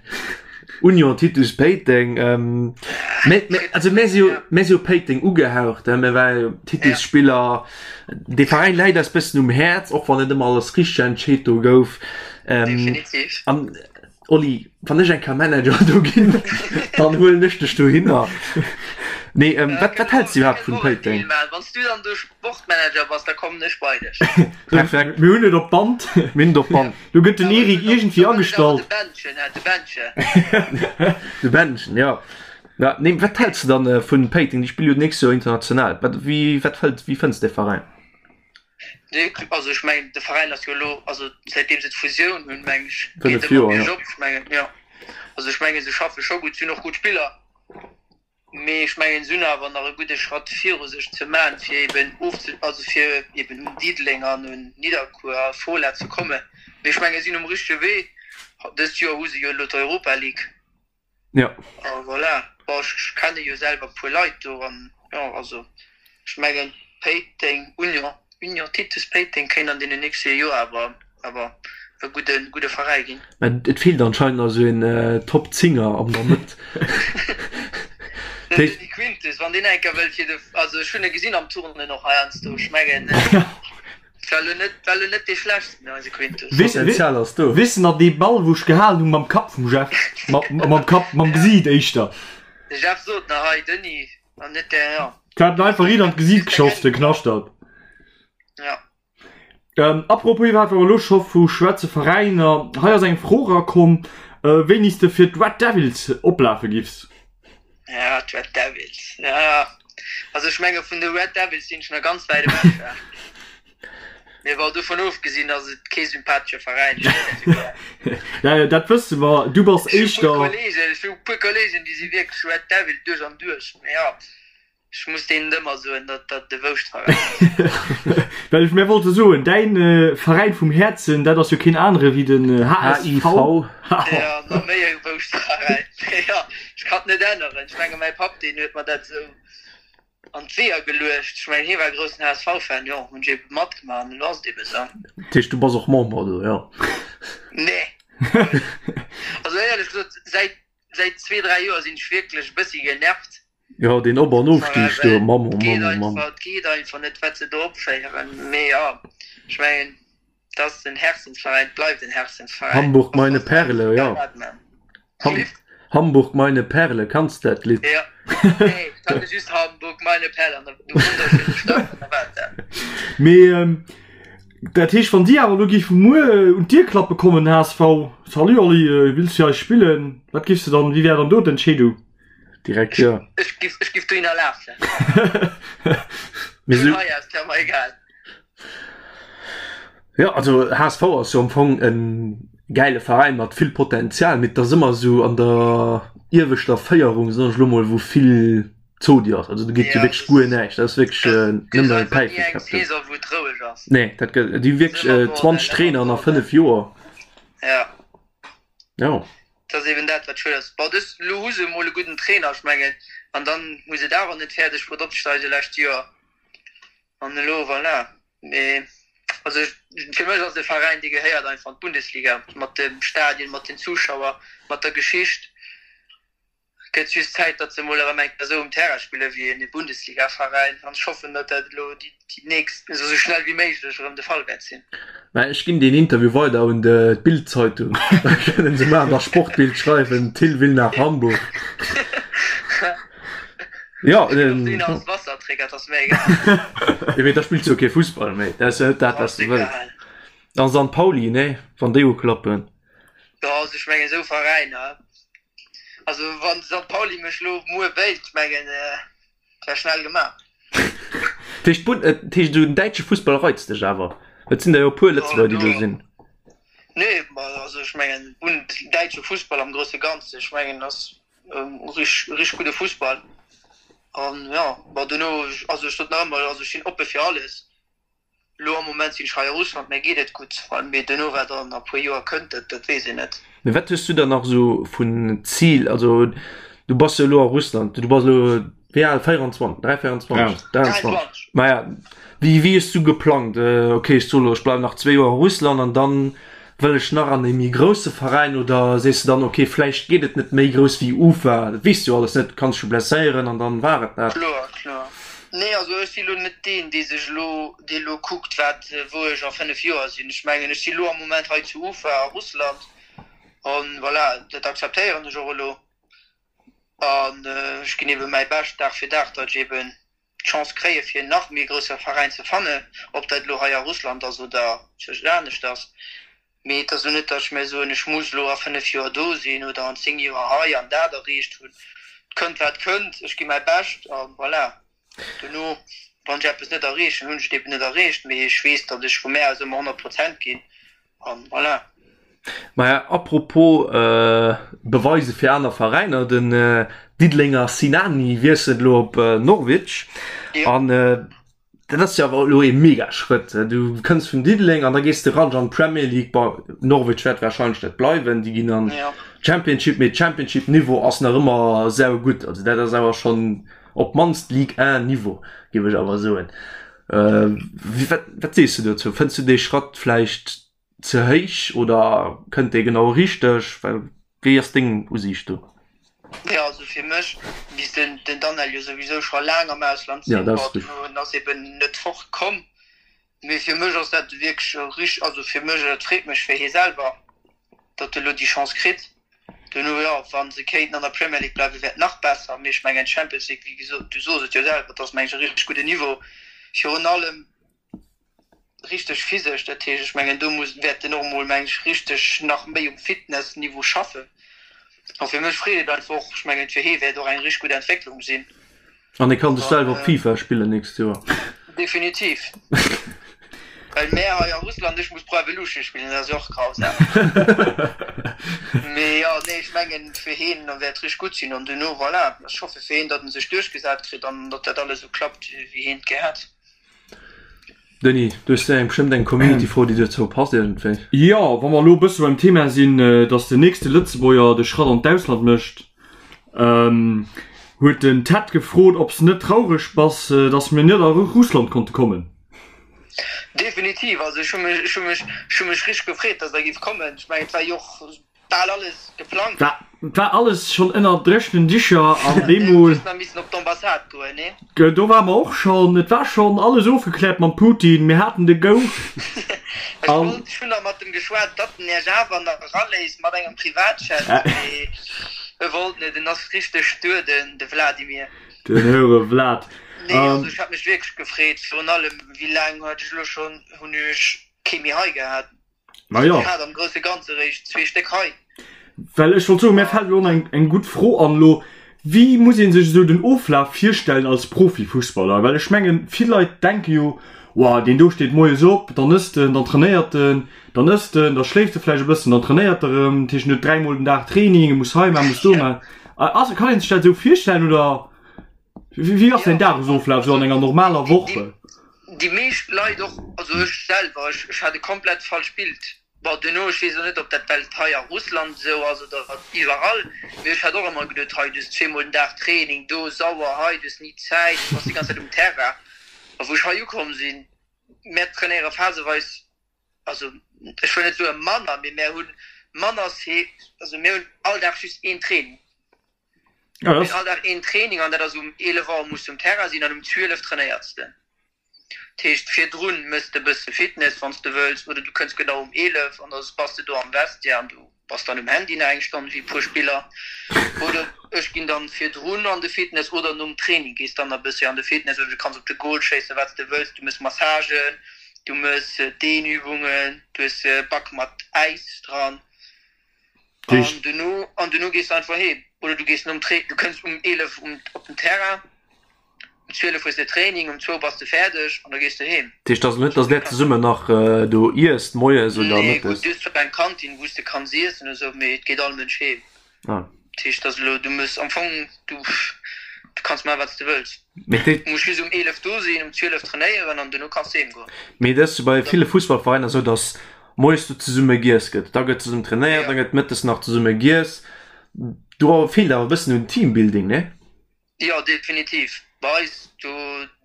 S1: Union Titus Péiteng. Mä, mä, also mär si jo, mär si jo Péiteng ugehaucht, mär ware jo Titus-Spiller. Dee Veräin läit eis bëssen um Häerz, och wann net ëmmer alles richteg entscheet do gouf.
S3: Definitiv.
S1: An Oli, wann ech eng Kéier Manager do ginn, dann huelen ech dech dohinner. Nee, wat, wat häls de iwwerhaapt vun Péiteng?
S3: Wann s du dann do Sportmanager bass, da kommen ech bei dech.
S1: Perfekt.
S2: Mir hunn et op Band.
S1: Mir hunn et op Band.
S2: Do gëtt den Eric iergendwéi agestallt.
S3: De Bändchen, de Bändchen.
S1: De Bändchen, jo. Ja, nee, wat häls de dann vun Péiteng? Déi spille jo d'nächst Joer international. Wat, wéi, wat fëllt, wéi fënns de Veräin?
S3: Nee, also ech mengen de Veräin ass jo elo, also säitdeem se d'Fusioun hunn, meng ech,
S1: geet
S3: ëmmer
S1: Joer, ja.
S3: biergop. Ech mengen, jo, also ech mengen se schaffe scho gutt, si hunn och gutt Spiller, mee ech mengen se hunn awer nach e gudde Schratt viru sech ze man, fir eben ofze, also fir eben un Diddeleng an un Nidderkuer a Fola ze kommen. Mee ech menge si sinn um richtege Wee. Dëst Joer hu se jo elo d'Europa League.
S1: Ja.
S3: A voilà. Bon, ech kenne jo selwer e puer Leit do an jo, also ech mengen Péiteng, Union, Union Titus Péiteng kéint an deenen nächste Joer awer awer e gudde gudde Veräi ginn.
S1: Mä et feelt anscheinend nach esou een Top Zinger an der Mëtt.
S3: Den Denis Quintus, wann deen eng Kéier wëllt fir de, also ech hunn e gesinn am Turnen och heiansdo, ech mengen. War lo net, war lo net dee schlechtsten, eise Quintus.
S1: Potenzial ass do.
S2: Weess de nach dee Ball wou ech gehalen hunn mam Kapp vum Jeff? Mam Kapp, mam Gesiit éischter.
S3: De Jeff sot nach, hei Denis, an net der, ja.
S2: Ech hat en einfach riit an d'Gesiit geschoss, de Knaschtert.
S3: Ja.
S2: Apropos iwwerhaapt, wa mer elo scho vu schwätze Veräiner, hei ass eng Fro erakomm, wéini s de fir d'Red Devils oplafe giffs.
S3: Ja, d'Red Devils, ja. Also ech menge vun de Red Devils sinn ech nach ganz wäit ewech. Ja. Mee bon, dovun ofgesinn ass et kee sympathesche Veräin.
S2: Ja, ja, dat wësse mer. Du bass éischter.
S3: Ech hu puer Kollegen, déi si wierklech Red Devil duerch an duerch. Mee ja. Ech muss deenen ëmmer soen, datt dat de Wouschtveräin
S2: ass. Well ech, mir wollte soen, däin Veräin vum Häerzen, dat ass jo keen anere wéi den HSV.
S3: Jo, nach méi e Wouschtveräin. Mee jo, ech kann et net änneren. Ech menge mäi Papp, deen huet mer dat esou an d'Weeër geluecht. Ech mengen, hie war e groussen HSV-Fan, jo, hunn ech ebe matgemaach an elo ass et ebe esou.
S1: Dat heescht, du bass och Member do, jo?
S3: Nee. Also éierlech gesot, säit, säit zwee, dräi Joer sinn ech wierklech e bëssi genervt.
S1: Jo, deen Op an Ofstig do, Mann, oh Mann, oh Mann.
S3: Et geet einfach net, wat se do opféieren. Mee jo, ech mengen, et ass en Herzensveräin, et bleift en Herzensveräin.
S1: Hamburg meine Perle, jo. Hamburg meine Perle, kanns de dat Lidd?
S3: Jo, nee, ech kannte just Hamburg meine Perle an der wunderschöne Stadt an da war et dat.
S2: Mee dat heescht, wann si awer elo géife muer un d'Dier klappe kommen, HSV, Salut Oli, wills du fir eis spillen? Wat giffs de dann, wéi wär dann do d'Entscheedung?
S1: Direkt jo.
S3: Ech giff, ech giff dohinner lafen. Vun hei aus, wär mer egal.
S1: Jo, also HSV ass jo am Fong e gäile Veräin mat vill Potenzial, mee et ass ëmmer esou an der ieweschter Féierung, soen ech elo mol, wou vill. Zodi ass. Also do geet jo wierklech guer näischt. Dat ass wierklech nëmmen Päife. Nee, dat gëtt, déi hu wierklech 20 Trainer an a 5 Joer.
S3: Ja.
S1: Jo.
S3: Dat ass eben dat, wat schued ass. Bon, dës, elo hu se emol e gudden Trainer, ech mengen, an dann hu se et awer net fäerdeg bruet opzesteigen lescht Joer. An elo, voilà. Mee also fir mech ass e Veräin, dee gehéiert einfach an d'Bundesliga, mat dem Stadion, mat den Zuschauer, mat der Geschicht. Gëtt just Zäit, datt se emol erëm eng Kéier esou um Terrain spille wéi en Bundesligaveräin. An ech hoffen, datt dat elo déi nächst, esou schnell wéi méiglech erëm de Fall wäert sinn.
S1: Mä ech ginn deen Interview weider un d'Bild-Zeitung. Da kënnen se mar an der Sportbild schreiwen, Thill will nach Hamburg.
S3: Jo, den. Als Wasserträger, dat ass mir egal.
S1: Jo, mee da spills du jo kee Fussball méi. Dat ass jo net dat, wat s du wëlls. An St. Pauli, nee, wann déi uklappen.
S3: Jo, also ech mengen esou Veräiner. Also wann St. Pauli mech lo muer wéilt, ech mengen et wär schnell gemaach.
S1: Dat heescht, d'Bund, dat heescht esou den däitsche Fussball reizt dech awer? Et sinn der jo e puer Lëtzebuerger, déi do sinn.
S3: Nee, ma also ech mengen Bund, däitsche Fussball am grousse Ganze, ech mengen ass rich rich gudde Fussball an jo, ma dono, also ech sot nach ëmmer, also ech sinn oppe fir alles. Elo am Moment sinn ech hei a Russland, mir geet et gutt, mee duerno wat an e puer Joer kënnt, dat dat weess een net.
S1: Mee wat hues du dann nach esou vun Zil? Also du bass jo elo a Russland, du bass elo wéi al? 24, 3, 24, 23? Maja, wéi wéi hues du geplangt, ok ech soe elo ech bleiwen nach zwee Joer a Russland an dann wëll ech nach an ee méi grousse Veräin oder sees de dann, ok vläicht geet et net méi grouss wéi Ufa, dat weess de jo alles net, du kanns dech jo blesséieren an dann war et dat.
S3: Kloer, kloer. Nee, also ech si lo net deen, dee sech elo, dee elo kuckt, wat, wou ech a 5 Joer sinn. Ech mengen, ech si lo am Moment hei zu Ufa a Russland an voilà, dat akzeptéieren ech och elo an ech ginn ebe mäi Bescht Dag fir Dag, datt ech eben d'Chance kréie fir en nach méi grousse Veräin ze fannen, ob dat elo hei a Russland ass oder zwëscht aneschters. Mee et ass elo net, datt ech mir soen, ech muss elo a 5 Joer do sinn oder an 10 Joer hei an dat erreecht hunn. Et kënnt wat kënnt, ech gi mäi Bescht a voilà. Dono, wann ech eppes net erreechen, hunn ech et eben net erreecht, mee ech weess, datt ech vu mär aus ëmmer 100 Prozent ginn An voilà.
S1: Maja, apropos Beweise fir aner Veräiner, den Diddelenger Sinani wiesselt elo op Norwich. An dat ass jo awer elo ee mega Schrëtt. Du kënns vun Diddeleng an da gees de ran an d'Premier League. Bon, Norwich wäert warscheinlech net bleiwen, déi ginn an d'Championship, mee Championship-Niveau ass nach ëmmer saugutt. Also dat ass awer schonn op d'mannst Ligue 1 Niveau, géif ech awer soen. Wat, wat sees du dozou? Fënns du dee Schratt vläicht ze héich oder kënnt dee genau richteg? Well wéi ass deng Usiicht do?
S3: Jo, also fir mech misst den, den Danel jo souwisou scho laang am Ausland
S1: sinn.
S3: Bon, en ass eben net fort komm. Mee fir mech ass dat wierklech rich, also fir mech, et freet mech fir hie selwer, datt e lo déi Chance kritt. Duerno, jo, wa se kéinten an der Premier League bleiwen, wär et nach besser. Mee ech mengen, d'Champions League, wéi gesot, du sos et jo selwer, et ass, meng ech, e richteg gudden Niveau, virun allem richteg physesch. Dat heescht, ech mengen, do muss, wäert en och emol, meng ech, richteg nach méi um Fitnessniveau schaffen. A fir mech freet et einfach och, ech mengen, fir hie wäert och eng richteg gutt Entwécklung sinn.
S1: An e kann sech selwer op FIFA spillen nächst Joer.
S3: Definitiv. Well mär hei a Russland, ech muss Pro Evolution spillen, dat ass jo och grausam. Mee jo, nee, ech mengen fir heen wäert richteg gutt sinn an duerno, voilà, ech hoffe fir heen, datt en sech duerchgesat kritt an datt dat alles esou klappt, wéi heen et gär hätt.
S1: Denis, du hues eng bestëmmt eng Community-Fro, déi dozou passt iergendwéi.
S2: Jo, wa mer elo e bësse beim Thema sinn, datt den nächste Lëtzebuerger de Schratt an d'Ausland mécht, huet den Ted gefrot, ob s de net traureg bass, datt mir net a Russland konnte kommen.
S3: Definitiv, also ech hu mech, ech hu mech, ech hu mech richteg gefreet, datt der giff kommen. Ech mengen, et war jo och Bal alles geplangt.
S2: War, war alles schonn ënner dréchnen Dicher an deemol.
S3: Just nach missen op d'Ambassade goen, nee?
S2: Do ware mer och schonn. Et war schonn alles ofgekläert mam Putin. Mir haten de Go.
S3: Ech wollt, ech hunn nach mat em geschwat, datt en Iech awer nach eraléisst mat engem Privatjet, mee e wollt net. En ass richteg stur, den, de Vladimir.
S2: Den höre Vlad.
S3: Nee, also ech hat mech wierklech gefreet. Virun allem, wéi laang hat ech elo schonn, hunn ech kee méi hei gehat.
S2: Ma jo.
S3: Ech hat am grousse Ganze réischt zwee Stéck hei.
S2: Well ech wollt soen, mär fält elo och nach eng gutt Fro an elo, Wéi muss ee sech esou den Oflaf virstellen als Profifussballer? Well ech mengen, vill Leit denke jo, Wow, deen do steet moies op, dann ësst en, dann trainéiert en, dann ësst en, da schléift e vläicht e bëssen, dann trainéiert e erëm, dat heescht en huet dräimol den Dag Training, e muss hei maachen, muss do maachen. Ass, kann ee sech dat esou virstellen oder? Wéi ass däin Dagesoflaf esou an enger normaler Woch?
S3: Déi meescht Leit och, also ech selwer, ech hat e komplett falscht Bild. Bon, duerno, ech weess och net, ob dat well et hei a Russland esou ass oder iwwerall, mee ech hat och ëmmer geduet, hei, du hues zweemol den Dag Training, do sauer, hei, du hues ni Zäit, du bass déi ganz Zäit um Terrain. A wou ech hei ukomm sinn, mär trainéiere phaseweis, also ech wëll net soe manner, mee mär hu manner, also mir hunn all Dag just een Training.
S2: Ja, das...
S3: All Dag een Training an dat ass um 11 Auer muss du um Terrain sinn an um 12 trainéiers de. Dat heescht virdrun mëss de bësse Fitness wann s de wëlls oder du kënns genau um 11 an da bass de do am Vestiaire an du bass dann um Handy nach eng Stonn wéi e puer Spiller. Oder ech ginn dann virdrun an de Fitness oder nom Training gees dann nach bëssi an de Fitness oder du kanns op de Goal schéissen wat s de wëlls. Du mëss Massagen, du mëss Dehnübungen, du hues e Bac mat Äis dran. An duerno, an duerno gees de einfach heem. Oder du gees nom Tra-, du kënns um 11 um, op den Terrain, um 12 hues de Training, um zwou bass de fäerdeg an da gees de heem.
S1: Dat heescht also net, dass där zesummen nach do iesst, moies oder
S3: Nee, gutt, mëttes? du hues zwar eng Kantin, wou s de kanns iessen oder sou, mee et geet all Mënsch heem.
S1: Ah.
S3: Dat heescht, dass elo, du muss am Fong, du, du kanns maachen, wat s de wëlls.
S1: Mee
S3: Du muss just um 11 do sinn, um 12 trainéieren an duerno kanns de heem goen.
S1: Mee dat ass jo bei ville Fussballveräiner esou, dass moies do zesumme giess gëtt, da gëtt zesummen trainéiert, da gëtt mëttes nach zesumme giess. Do feelt awer e bëssen un Teambuilding, ne?
S3: Jo, definitiv. Bei eis, do,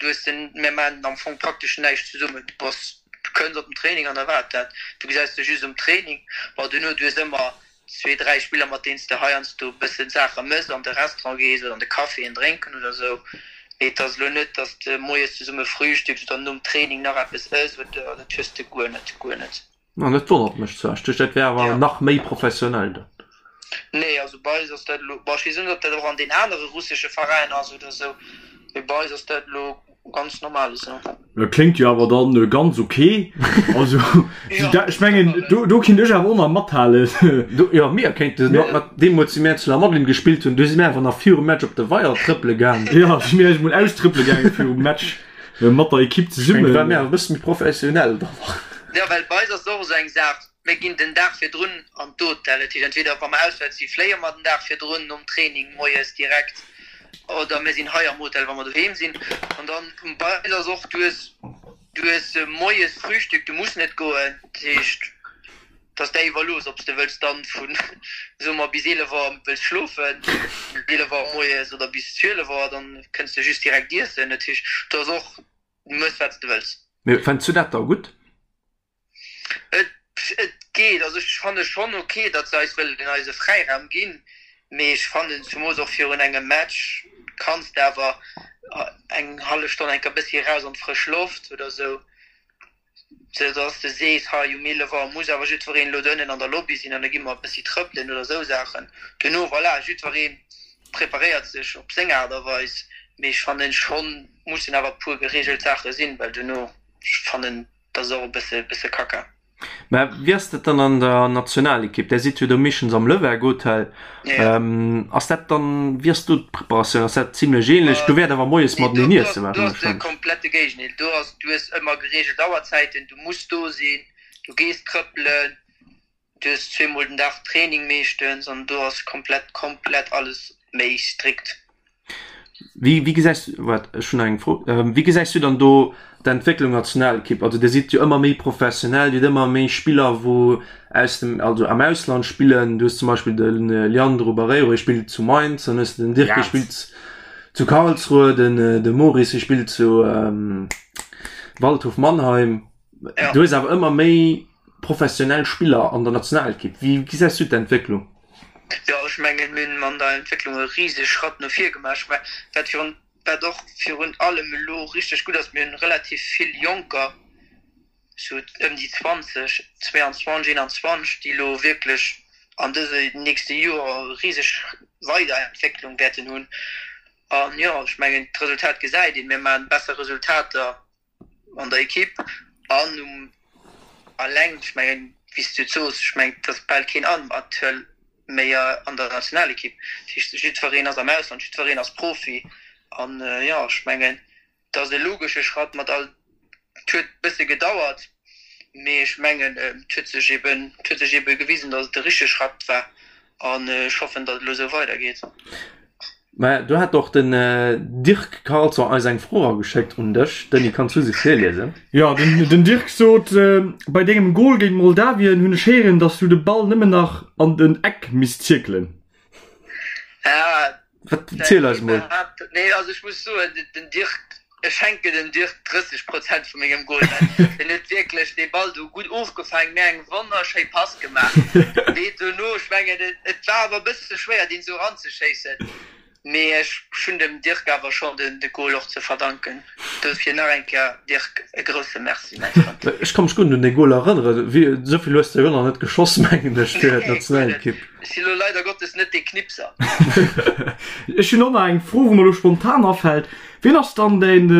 S3: du hues den, mir maachen am Fong praktesch näischt zesummen. Du bass, du kënns op den Training an da war et dat. Du gesäis dech just um Training. Bon, duerno, du hues ëmmer zwee, dräi Spiller, mat deenen s de heiansdo e bëssen Saache mëss, an de Restaurant gees oder an de Café en drénken oder esou. Mee et ass elo net, datt s de moies zesumme frühstücks oder nom Training nach eppes ëss oder, dat hues de guer net, guer net.
S1: An dat wonnert mech zwar. Ech duecht, dat wär awer nach méi professionell dann.
S3: Nee, also bei eis ass dat elo, bon, ech weess net, ob dat och an den anere russesche Veräiner ass oder esou, mee bei eis ass dat elo ganz normal esou.
S2: Dat kléngt jo awer dann ganz ok. Also, ech mengen, do, do kinnt ech awer och nach mathalen.
S1: Do, jo, mir kéinten mat, mat deemools, wéi mir zu La Madeleine gespillt hunn, do si mir einfach nach virum Match op de Weier trëppele gaangen.
S2: Jo, si mir eis emol austrëppele gaangen virum Match. Mat der Ekipp zesummen.
S1: War mir e bësse méi professionell dann.
S3: Jo, well bei eis ass et och esou eng Saach, mir ginn den Dag virdrun an d'Hotel. Dat heescht, entweder wa mer auswäerts si fléie mer den Dag virdrun nom Training moies direkt oder mir sinn hei am Hotel, wa mer doheem sinn. An dann bei eis ass och, du hues, du hues moies Frühstück, du muss net goen. Dat heescht, Et ass där iwwerlooss, ob s de wëlls dann vun, soe mer, bis 11 Auer wëlls schlofen, 11 Auer moies, oder bis 12 Auer, dann kënns de just direkt iessen. Dat heescht, do ass och, du mëss wat s de wëlls.
S1: Mee fënns du dat da gutt?
S3: Et, et geet. Also ech fanne schonn ok, datt se eis wëllen eise Fräiraum ginn, mee ech fannen, zumoos och virun engem Match, kanns de awer eng hallef Stonn enker bëssi eraus an d'frësch Loft oder esou. Sou dass de sees, hei um 11 Auer muss awer jiddwereen elo do ënnen an der Lobby sinn an da gi mer e bëssi trëppelen oder esou Saachen. Duerno, voilà, jiddweree preparéiert sech op seng Aart a Weis, mee ech fannen schonn, mussen awer e puer gereegelt Saache sinn, well duerno, ech fannen, dat ass och e bësse, bësse Kacka.
S1: Mä wéi ass dat dann an der Nationalekipp? Där sidd jo do meeschtens am Lëwerg Hotel. Ass dat dann, wéi ass do d'Preparatioun? Ass dat zimlech ähnlech? Do wäert awer moies mateneen
S3: iesse Do ass de komplette Géigendeel. Do ass, du hues ëmmer gereegelt Auerzäiten, du muss do sinn, du gees trëppelen, du hues zweemol den Dag Training meeschtens an do ass komplett, komplett alles méi strikt.
S1: Wéi, wéi gesäis du, waart, ech hunn nach eng Fro, wéi gesäis du dann do d'Entwécklung Nationalekipp? Also Dir sidd jo ëmmer méi professionell, Dir hutt ëmmer méi Spiller wou aus dem, also am Ausland spillen. Du hues zum Beispill de Leandro Barreiro, hie spillt zu Mainz, dann hues de den Dirk, dee spillt zu Karlsruhe, den de Maurice, hie spillt zu Waldhof Mannheim. Du hues awer ëmmer méi professionell Spiller an der Nationalekipp. Wéi gesäis du d'Entwécklung?
S3: Jo, ech mengen, mir hunn an der Entwécklung e risege Schratt no vir gemaach. Ech mengen, wat virun, wat och virun allem elo richteg gutt ass, mir hunn relativ vill Jonker, sou ëm déi 20, 22, 21, déi elo wierklech an dëse nächste Joer e riseg Weiderentwécklung wäerten hunn. An jo, ech mengen, d'Resultat gesäit een, mir maachen besser Resultater an der Ekipp an um alleng, ech mengen, wéi s du et soos, ech mengen, et ass bal keen Amateur méi an der Nationalekipp. Dat heescht, jiddwereen ass am Ausland, jiddwereen ass Profi. An jo, ech mengen, et ass e logesche Schratt mat all, et huet e bësse gedauert, mee ech mengen, et huet sech eben, et huet sech ebe gewisen, datt et de richtege Schratt war. An ech hoffen, datt et elo esou weidergeet.
S1: Mä do hat och den Dirk Carlson eis eng Fro erageschéckt un dech. Denis, kanns du se virliesen?
S2: Jo, den Dirk sot, Bei dengem Gol géint Moldawien hunn ech héieren, datt s du de Ball nëmmen nach an den Eck misst zierkelen.
S1: Wat, ziel eis mol.
S3: Nee, also ech muss soen, den Dirk, ech schenken dem Dirk 30 Prozent vu mengem Goal, well en huet wierklech dee Ball do gutt ofgefaangen, mir eng wonnerschéi Pass gemaach. Mee dono, ech mengen, et war awer e bësse schwéier, deen esou eranzeschéissen. Mee ech hunn dem Dirk awer schonn de Goal och ze verdanken. Dofir nach eng Kéier, Dirk, e grousse Merci, mäi Frënd.
S1: Ech ka mech guer net un dee Goal erënneren. Esou vill hues de jo nach net geschoss, mengen ech, fir d'Nationalekipp.
S3: Ech si lo leider Gottes net dee Knipser.
S2: Ech hunn och nach eng Fro, wou mer lo spontan afält. Wien ass dann däin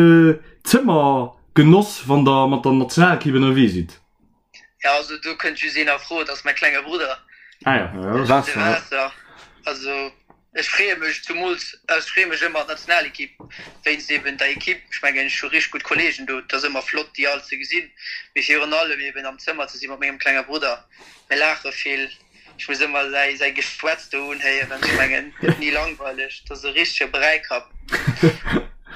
S2: Zëmmergenoss, wann der mat der Nationalekipp ënnerwee sidd?
S3: Ja, also do kënnt just een a Fro, dat ass mäi klenge Brudder.
S2: Ah ja,
S3: de Vincent. Also ech freeë mech zumools, ech freeë mech ëmmer an d'Nationalekipp wéinst eben der Ekipp. Ech mengen ech hu richteg gutt Kolleegen do, et ass ëmmer flott déi all ze gesinn, mee virun allem eben am Zëmmer ze si mat mengem klenge Brudder. Mir laache vill, ech muss ëmmer säi säi Geschwätz do unhéieren. Ech mengen et gëtt ni langweileg, et ass e richtege Bräikapp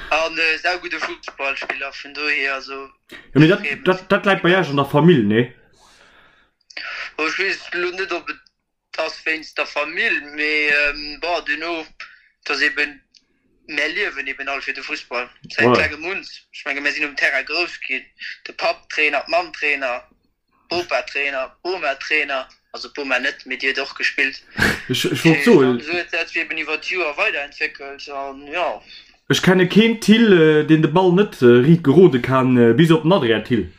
S3: an e saugudde Fussballspiller, vun dohier also.
S2: Ja, mee dat, dat, dat läit bei Iech an der Famill, nee?
S3: Oh, ech weess elo net, ob et ass wéinst der Famill, mee bon, duerno, et ass eben, mär liewen eben all fir de Fussball säit klengem un. Ech menge mär sinn um Terrain grouss ginn, de Papp Trainer, d'Mamm Trainer, Bopa Trainer, Boma Trainer, also d'Boma net, mee déi huet och gespillt.
S2: Ech, ech wollt soen.
S3: An esou huet dat sech eben iwwer d'Joer weiderentwéckelt an jo.
S2: Ech kenne keen Thill, deen de Ball net riit gerode kann, bis op den Adrien Thill.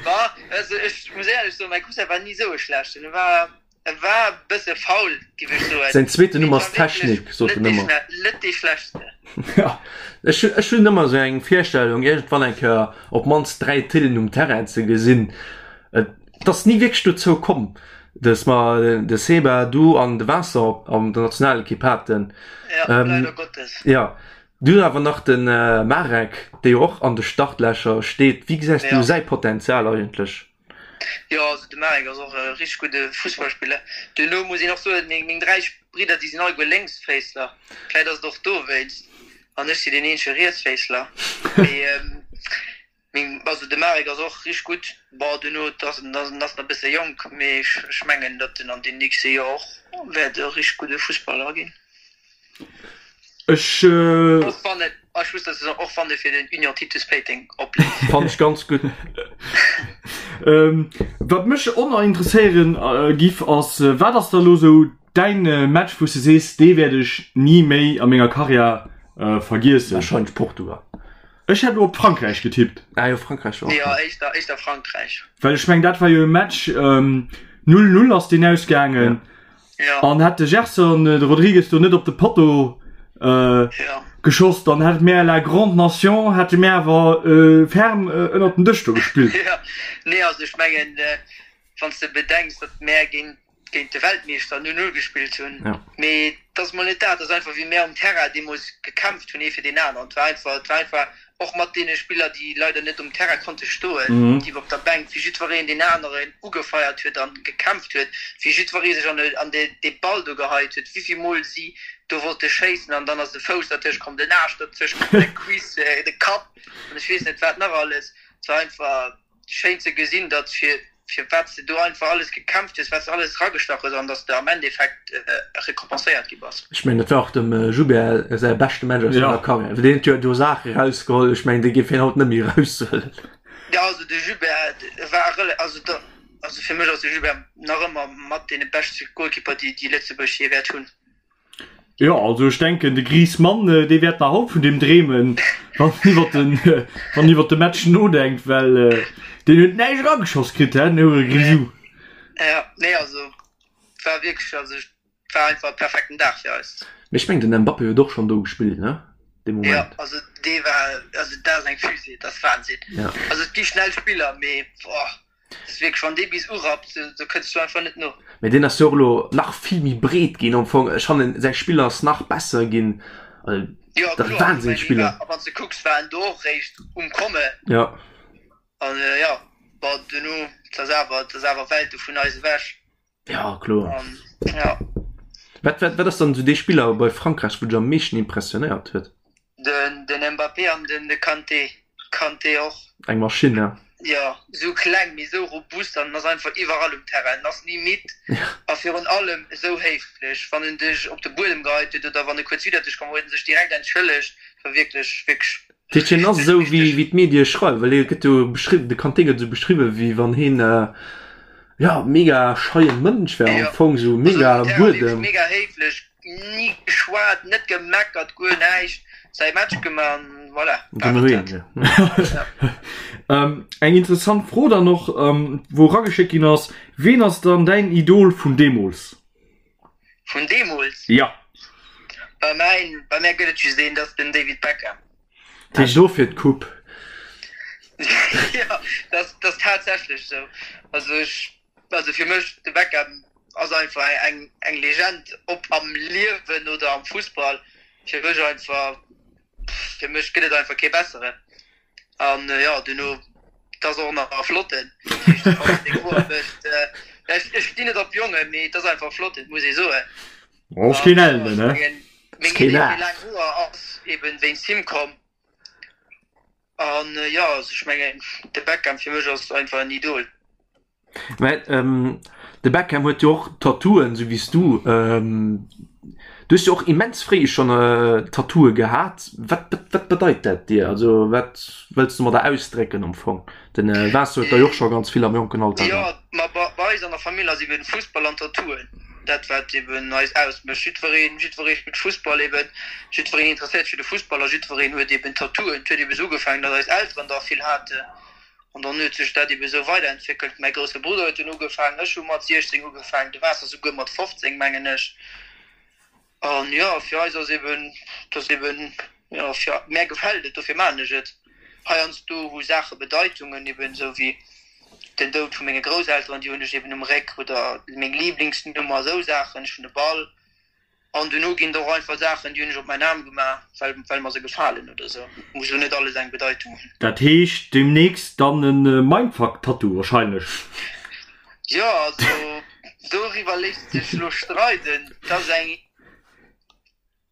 S3: Ma also ech muss éierlech soen, mäi Cousin war ni esou e schlechten. E war, e war e bësse faul, giff ech soen.
S1: Säin zweeten Numm ass Technik, sot en ëmmer.
S3: Net dee schlechtste.
S1: Ech ech hunn ëmmer esou eng Virstellung, iergendwann eng Kéier op d'mannst 3 Thillen um Terrain ze gesinn. Et ass ni wierklech dozou komm, dass mer de Seba, du an de Vincent an der Nationalekipp haten.
S3: Ja, leider Gottes.
S1: Ja, du hunn awer nach de Marek, dee jo och an de Startlächer steet. Wéi gesäis du säi Potenzial eigentlech?
S3: Jo, also de Marek ass och e richteg gudde Fussballspiller. Duerno muss een och soen, meng 3 Bridder, déi sinn alleguer Lénksféissler. Vläicht ass et och dowéinst. An ech sinn deen eenzege Rietsféissler. Mee Meng, also de Marek ass och richteg gutt. Bon, duerno ass en ass nach e bësse jonk, mee ech mengen, datt en an den nächste Joer och wäert e richteg gudde Fussballer ginn.
S2: Ech.
S3: Och wann et, ech muss dozou soen, och wann e fir den Union Titus Péiteng opleeft.
S1: Fannen ech ganz gutt.
S2: Wat mech och nach interesséieren giff ass, wat ass da lo sou däin Match wou s de sees, dee wäert ech ni méi a menger Karriär vergiessen?
S1: Wahrscheinlech Portugal.
S2: Ech hätt elo op Frankräich getippt.
S1: Ah jo, Frankräich
S3: war och. Jo, éischter, éischter Frankräich.
S2: Well ech meng, dat war jo e Match, 0, 0 ass deen ausgaangen.
S3: Ja.
S2: An hätt de Gerson de Rodrigues do net op de Potto
S3: ja.
S2: geschoss, dann hätt mär la grande nation, hätte mär awer ferm ënnert den Dësch do gespillt.
S3: Ja, nee, also ech mengen, wann s de bedenks, datt mär géint géint de Weltmeeschter 0, 0 gespillt hunn.
S1: Ja.
S3: Mee et ass mol net dat, et ass einfach wéi mär um Terrain deemools gekämpft hunn ee fir deen aneren. Et war einfach, et war einfach och mat deene Spiller, déi leider net um Terrain konnte stoen, déi op der Bänk, wéi jiddwereen deen aneren ugefeiert huet an gekämpft huet, wéi jiddweree sech an an dee Ball do geheit huet, wéivill Mol si do wollte schéissen an dann ass de Fouss dertëscht komm, den Aarsch dertëscht komm, de Cuisse, de Kapp an ech weess net wat nach alles. Et war einfach. Schéin ze gesinn datt fir fir wat s de do einfach alles gekämpft hues, wat s de alles eragestach hues an datt s de am Endeffekt récompenséiert gi bass.
S1: Ech mengen dat war och dem Joubert säi beschte Match aus senger Karriär, well deen huet jo do Saache erausgeholl, ech mengen déi géif hien haut net méi eraushuelen.
S3: Jo also de Joubert war rela also da also fir mech ass de Joubert nach ëmmer mat dee beschte Goalkeeper déi déi Lëtzebuerg jee wäert hunn.
S2: Jo, also ech denken de Griezmann, dee wäert nach haut vun deem dreemen, wann en iwwer den, wann en iwwer de Match nodenkt, well deen huet näischt erageschoss kritt, hä, den Hure Grisou.
S3: Ja, nee, also et war wierklech, also et war einfach e perfekten Dag fir eis.
S1: Mee ech mengen den Mbappé huet och schonn do gespillt, ne, dee
S3: Moment. Jo, also dee war, also dat ass eng Fusée, dat ass Wahnsinn. Also et gi schnell Spiller, mee boah. Ass wierklech, wann dee bis urappt, do kënns du einfach net no.
S1: Mee deen ass jo och elo nach vill méi breet ginn am Fong. Ech fannen säi Spill ass nach besser ginn.
S3: Jo
S1: Dat
S3: kloer,
S1: Wahnsinnsspiller.
S3: a wann s de kucks war en do och réischt um komme.
S1: Jo.
S3: An jo, bon duerno, et ass awer, et ass awer Welte vun eis ewech.
S1: Ja kloer.
S3: An ja.
S1: Wat, wat, wat ass dann esou dee Spiller bei Frankräich, wou dech am meeschten impressionéiert huet?
S3: Den, den Mbappé an den de Kanté. Kanté och.
S1: Eng Maschinn, ne?
S3: Jo, esou kleng, mee esou robust an en ass einfach iwwerall um Terrain. En ass ni midd a virun allem esou héiflech. Wann en dech op de Buedem geheit huet oder wann e kuerz widder dech komm, huet en sech direkt entschëllegt. War wierklech, wierklech.
S1: Dat heescht, hien ass esou wéi, wéi d'Medie schreiwen, well hie gëtt jo beschriwwen, de Kanté gëtt esou beschriwwen, wéi wann hien, jo, mega scheie Mënsch wär am Fong, esou mega Buedem.
S3: Mega héiflech, Ni geschwat, net gemeckert, guer näischt, säi Match gemaach an voilà, war et
S2: dat. Eng interessant Fro dann och, wou erageschéckt ginn ass, Ween ass dann däin Idol vun deemools?
S3: Vun deemools?
S2: Jo.
S3: Bei mäin, bei mär gëtt et just een, dat ass den David Beckham.
S1: Dat heescht dofir d'Coupe?
S3: Jo, dat ass tatsächlech esou. Also ech Also fir mech de Beckham ass einfach eng eng Legend, ob am Liewen oder am Fussball. Fir mech einfach, fir mech gëtt et einfach kee besseren. An jo duerno et ass och nach e flotten, dat heescht wann en seng Hoer mécht, ech ech stinn net op Jongen, mee et ass einfach e flotten, muss ee soen.
S2: Ass keen Ellenen,
S3: ne? Meng Idee fir laang Hoer ass eben wéinst him komm. An jo, also ech mengen de Beckham fir mech ass einfach en Idol.
S1: Mä de Beckham huet jo och Tattooen, sou wéi s du. Du hues jo och immens fréi schonn Tattooe gehat. Wat wat bedeit dat dir? Also wat wëlls du domadder ausdrécken am Fong? Den Vincent huet der jo och scho ganz vill am jonken Alter
S3: Jo, ma bei eis an der Famill ass eben Fussball an Tattooen dat wat eben eis ausmécht. Jiddwereen, jiddweree spillt Fussball eben, jiddwereen interesséiert sech fir de Fussball a jiddwereen huet eben Tattooen. Et huet eben esou ugefaangen, datt eis Elteren der vill haten an dann huet sech dat eben esou weiderentwéckelt. Mäi grousse Brudder huet dunn ugefaangen, ech hu mat 16 ugefaangen, de Vincent souguer mat 15 mengen ech. An jo, fir eis ass eben, et ass eben, jo, fir mär gefält et, dofir maachen ech et. Heiansdo hu Saache Bedeitungen, eben esou wéi den Doud vu menge Grousselteren, déi hunn ech eben um Réck, oder meng Liblingsnummer, esou Saachen. Ech hunn e Ball. An duerno ginn et och einfach Saachen, déi hunn ech op mäin Aarm gemaach, well, well mer se gefalen oder esou. Muss elo net alles eng Bedeitung hunn.
S2: Dat heescht demnächst dann e Mindfuck-Tattoo wahrscheinlech?
S3: Jo, also doriwwer léisst sech elo streiden. Dat ass eng,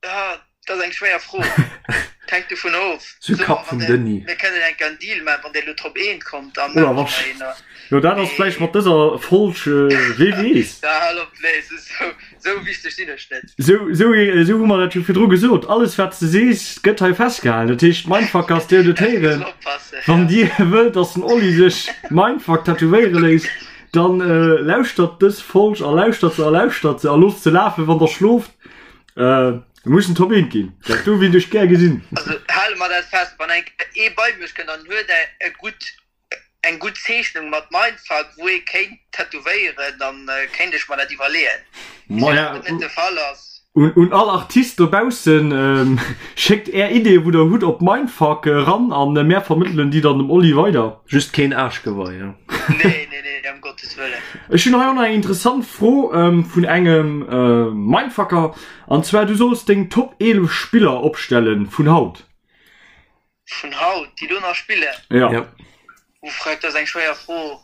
S3: ah, dat ass eng schwéier Fro. Et hänkt dovun of.
S1: Zu Kapp vum Denis.
S3: Mir kënnen enk en Deal maachen, wann Dir elo drop eent kommt, da maache mer een.
S2: Jo, dat ass vläicht mat dëser Folg, wee weess.
S3: Da hal op, nee, esou, esou wichteg sinn ech net.
S2: Esou, esou, esou hu mer dat jo virdru gesot. Alles, wat s de sees, gëtt hei festgehalen. Dat heescht, Mindfuckers, Dir hutt et héieren. Wann Dir wëllt, dass den Oli sech Mindfuck tätowéiere léisst, dann lauschtert dës Folg a lauschtert se a lauschtert se a loosst se lafen, wann Der schlooft. Mir mussen Top 1 ginn. Dat do wéilt ech gär gesinn.
S3: Also hale mer dat fest, wann eng Kéier ee bei mech kënnt an huet e gutt, eng gutt Zeechnung mat Mindfuck, wou ee kéint tätowéieren, dann kéint ech mer dat iwwerleeën.
S2: Maja, dat net de Fall ass. Un, un all Artist dobaussen, schéckt är Ideeë wou der hutt op Mindfuck eran an mär vermëttelen déi dann dem Oli weider.
S1: Just keen Aarschgewei,
S3: jo. Nee, nee, nee, ëm Gottes Wëllen.
S2: Ech hunn hei och nach eng interessant Fro vun engem Mindfucker, an zwar du solls deng Top 11 Spiller opstellen vun haut.
S3: Vun haut, déi do nach spillen?
S2: Ja.
S1: Ja.
S3: Uff, dat ass eng schwéier Fro.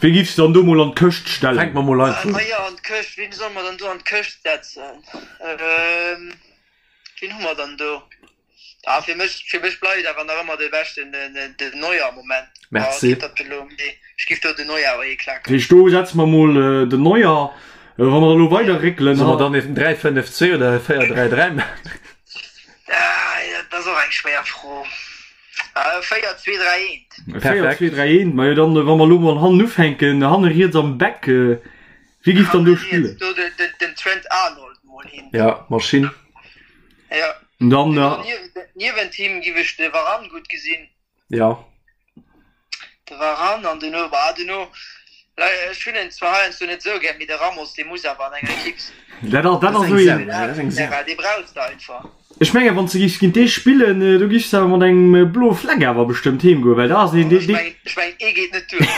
S2: Wee giffs de dann do mol an d'Këscht stellen?
S1: Fänk mer mol einfach
S3: un. Majo, an d'Këscht, wien solle mer dann do an d'Këscht setzen? Wien hu mer dann do? Ah, fir mech, fir mech bleift awer nach ëmmer de beschten den, den Neuer am Moment.
S1: Merci.
S3: Ah, dat elo, mee ech giff do den Neuer awer hiklaken.
S2: Dat heescht, do setze mer mol den Neuer. Wa mer da lo weider réckelen.
S1: Solle mer dann en 3, 5, 2 oder e 4, 3, 3 maachen?
S3: Ah, dat ass och eng schwéier Fro. 4, 2, 3,
S2: 1. 4, 2, 3, 1. Majo, dann, wa mer elo mol hannen ufänken, hanne riets am Back, wie giff dann do spillen?
S3: Do den, den, den Trent Arnold mol hin.
S1: Ja, Maschinn.
S3: Ja.
S2: Dann,
S3: Niewent him giff ech de Varane gutt gesinn.
S1: Ja.
S3: De Varane an duerno, bah duerno, ech hunn en zwar heiansdo net esou gär, mee de Ramos dee muss awer an enger Ekipp
S2: sinn. Dat ass, dat ass esou een.
S1: Dat ass eng Sau.
S3: Dee brauchs de einfach.
S2: Ech mengen, wann s de giffs géint dee spillen, do giffs de awer mat engem bloe Fleck awer bestëmmt heem goen, well dat ass een, dee, dee.
S3: Ech mengen, ee geet net duer.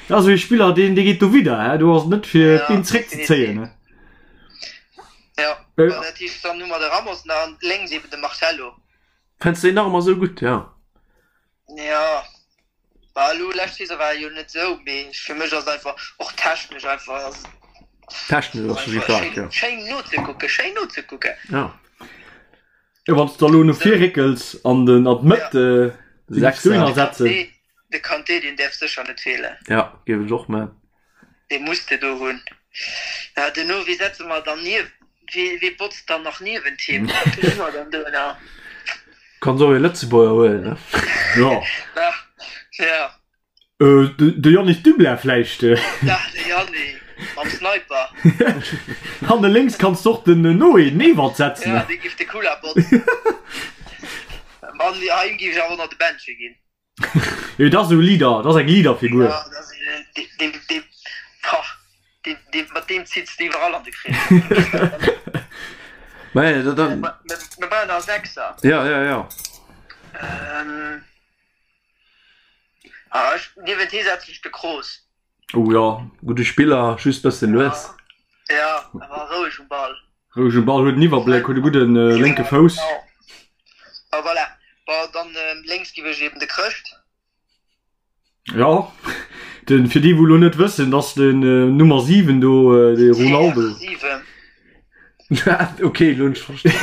S2: Dat ass esou ee Spiller, deen, dee geet dowidder, hè, do ass et net fir d'Been zréckzezéien, hè.
S3: Jo, dat heescht, dann hu mer de Ramos nach an lénks eben de Marcelo.
S1: Fënns de deen nach ëmmer esou gutt, jo?
S3: Jo, bah elo lescht Saison war e jo net esou, mee fir mech ass et einfach och technesch einfach ass et.
S1: Technesch ass si staark, jo.
S3: Schéin nozekucken, schéin nozekucken.
S1: Ja.
S2: Jo, wann s de elo no vir réckels an den an d'Mëtt
S1: Sechser
S2: setzen.
S3: De Kanté, deen däerf sécher net feelen.
S1: Ja, géif ech och man.
S3: Dee muss de do hunn. Ja, duerno, wee setze mer dann nief, wee, wee botzt dann nach niewent him? Wee hu mer dann do nach?
S1: Kanns och ee Lëtzebuerger huelen, ne?
S2: Jo.
S3: Ja, ja.
S2: De Yannick Dublin vläicht?
S3: Ja, de Yanni mam Sniper.
S2: Hanne lénks kanns de och den Noé Newald setzen.
S3: Ja, dee giff de Kula botzen. An him giff ech awer och nach de Bändche ginn.
S2: Jo, dat ass esou e Leader, dat ass eng Leaderfigur.
S3: Ja, dat ass een, dee, dee, dee, pah, dee, dee, mat deem zitts de iwwerall an de Krees.
S1: Mä da, da.
S3: Mir brauchen nach e Sechser.
S1: Ja, ja, ja.
S3: Ähm, ah, ech, niewent hee setzen ech de Kroos.
S2: Oh ja.
S1: Gudde Spiller, just bëssen lues.
S3: Ja, awer roueg um Ball.
S2: Roueg um Ball, huet den Iwwerbléck, huet e gudde lénke Fouss.
S3: Ah voilà, bon dann lénks giff ech eben de Chrëscht.
S2: Jo, den, fir déi wou lo net wëssen, dass den Nummer 7 do, de Ronaldo.
S3: CR7.
S1: Ok, lo hunn ech verstanen.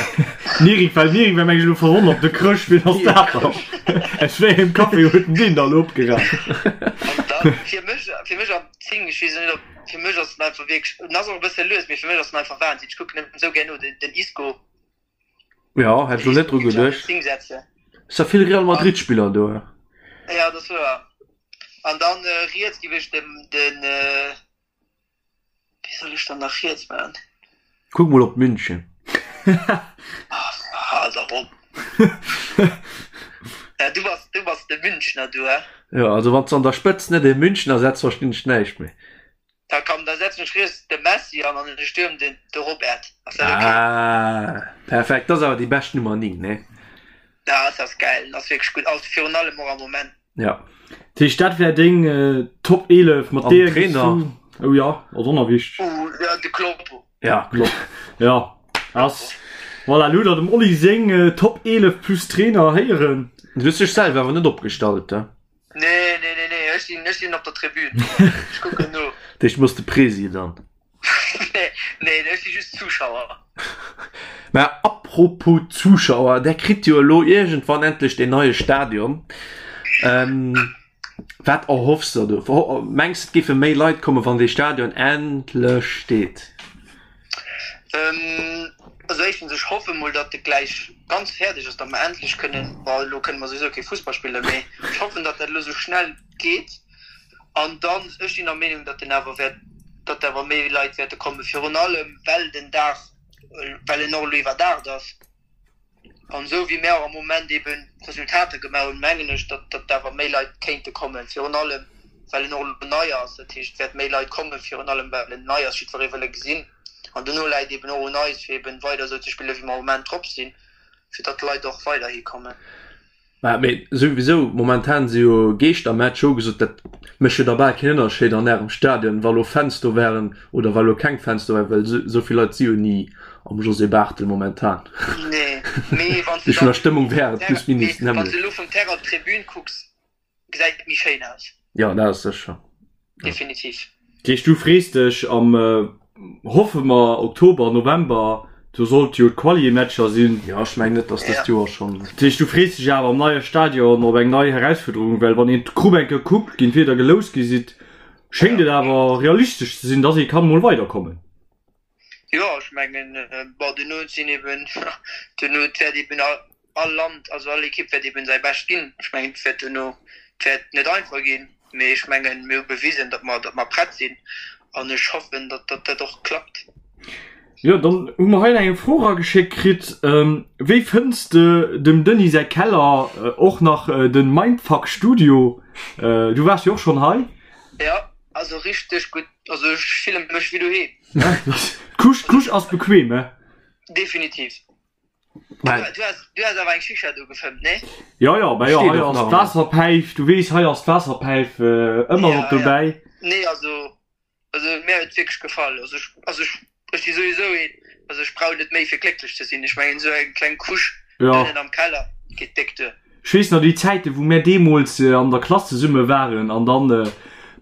S2: Nirik, well Nirik war meng ech elo verwonnert, de Chrëscht, wien ass dat dann? Aus wéi engem Café huet en deen da lo opgeraf?
S3: An dann fir mech, fir mech am 10, ech weess net ob, fir mech ass en einfach wierklech, en ass och e bësse lues, mee fir mech ass en einfach Wahnsinn, ech kucken em esou gär no, den, den Isco.
S1: Ja, hätt ech lo net dru geduecht. Ass der vill Real Madrid Spiller do.
S3: Ja, dat ass wouer. An dann riets giff ech dem den wéi soll ech dann nach riets man?
S1: Kuck mol op München.
S3: Hal dach op. Ja, du bass du bass de Münchner du he?
S1: Jo, also wann s de an der Spëtzt net ee Münchner setz, verstinn ech näischt méi.
S3: Da komm, da setzen ech riets de Messi an an de Stürm den de Robert. Ass dat ok?
S1: Ah, perfekt. Dat ass awer déi bescht Nummer 9, nee?
S3: Ja, dat ass gäil, dat ass wierklech gutt, also virun allem och am Moment.
S1: Ja.
S2: Dat heescht, dat wär deng Top 11 mat
S1: An
S2: deeër
S1: Trainer?
S2: géifs du. Oh ja, ass och nach wichteg.
S3: Uh, ja, de Kloppo.
S1: Ja, Klopp.
S2: Ja, ass. Voilà, elo hutt der dem Oli seng Top 11 plus Trainer héieren.
S1: Du hues dech selwer awer net opgestallt, he?
S3: Nee, nee, nee, nee, ech sinn, ech sinn op der Tribün. Ech kucken no.
S1: Dech muss de Presi dann.
S3: Nee, nee, ech si just Zuschauer.
S1: Mä apropos Zuschauer, där kritt jo elo iergendwann endlech deen neie Stadion. Ähm, wat erhoffs de der do? Mengs de, et géife méi Leit kommen, wann dee Stadion endlech steet?
S3: Ähm, also éischtens, ech hoffe mol, datt e gläich ganz fäerdeg ass, datt mer endlech kënnen, bon, elo kënne mer souwisou kee Fussball spillen, mee ech hoffen, datt dat elo esou schnell geet. An dann, ech sinn der Meenung, datt en awer wäert, datt awer méi Leit wäerte kommen, virun allem well den Daach, well en och elo iwwerdaacht ass. An esou wéi mär och am Moment eben Resultater gemaach hunn, mengen ech, datt datt awer méi Leit kéinte kommen, virun allem well en och elo nei ass. Dat heescht, et wäert méi Leit kommen, virun allem well en nei ass, jiddweree wëll e gesinn. An dono läit eben och un eis, fir eben weider esou ze spillen, wéi mer am Moment drop sinn, fir datt d'Leit och weiderhi kommen.
S1: Mä mee souwisou, momentan si jo Geeschtermatch hu gesot, dat mécht jo da bal keen Ënnerscheed an ärem Stadion, wa lo Fans do wären oder wa lo keng Fans do wären, well esou vill Leit si jo ni am José Barthel momentan.
S3: Nee, mee wann s de
S1: Vun
S3: dann
S1: der Stëmmung wär et plus minus
S3: wann s
S1: d'nämmlecht.
S3: de elo vum Terrain op d'Tribün kucks, gesäit et méi schéin aus.
S1: Jo, dat ass sécher.
S3: Definitiv.
S2: Dat heescht, du frees dech am, hoffe mer, Oktober, November, do sollt jo d'Quali-Matcher sinn.
S1: Jo, ech mengen net, datt dëst Joer schonn.
S2: Dat heescht, du frees dech awer am neie Stadion op eng nei Herausfuerderung, well wann een d'Grupp eng Kéier kuckt, géint wien der geloust gi sidd, schéngt et awer realistesch ze sinn, datt ee kann mol weiderkommen.
S3: Jo, ech mengen, bon, duerno sinn eben, duerno, et wäert eben all Land, also all Ekipp wäert eben säi Bescht ginn. Ech mengen, et wäert duerno, et wäert net einfach ginn, mee ech mengen, mir hu bewisen, datt mer, datt mer prett sinn an ech hoffen, datt, datt dat och klappt.
S2: Jo, dann hu mer hei nach eng Fro erageschéckt kritt, Wéi fënns de dem Denis säi Keller, och nach den Mindfuck Studio? Du waars jo och schonn hei.
S3: Jo, also richteg gutt, also ech fille mech wéi doheem.
S2: D'Couche, d'Couche ass bequem, he?
S3: Definitiv. Du, du has, du has awer eng Shisha do gefëmmt, nee?
S2: Jo, jo, bah jo,
S1: Steet
S2: hei
S1: och
S2: ass
S1: nach ëmmer.
S2: d'Waasserpäif, du weess, hei ass d'Waasserpäif ëmmer
S3: Ja,
S2: mat dobäi.
S3: ja. Nee, also, also mir huet et wierklech gefall. Also ech, also ech, ech si souwisou een, also ech brauch net méi fir glécklech ze sinn. Ech mengen esou eng kleng Couche
S2: Ja.
S3: ënnen am Keller geet déck duer.
S2: Ech weess nach déi Zäiten, wou mär deemools an der Klass zesumme waren an dann.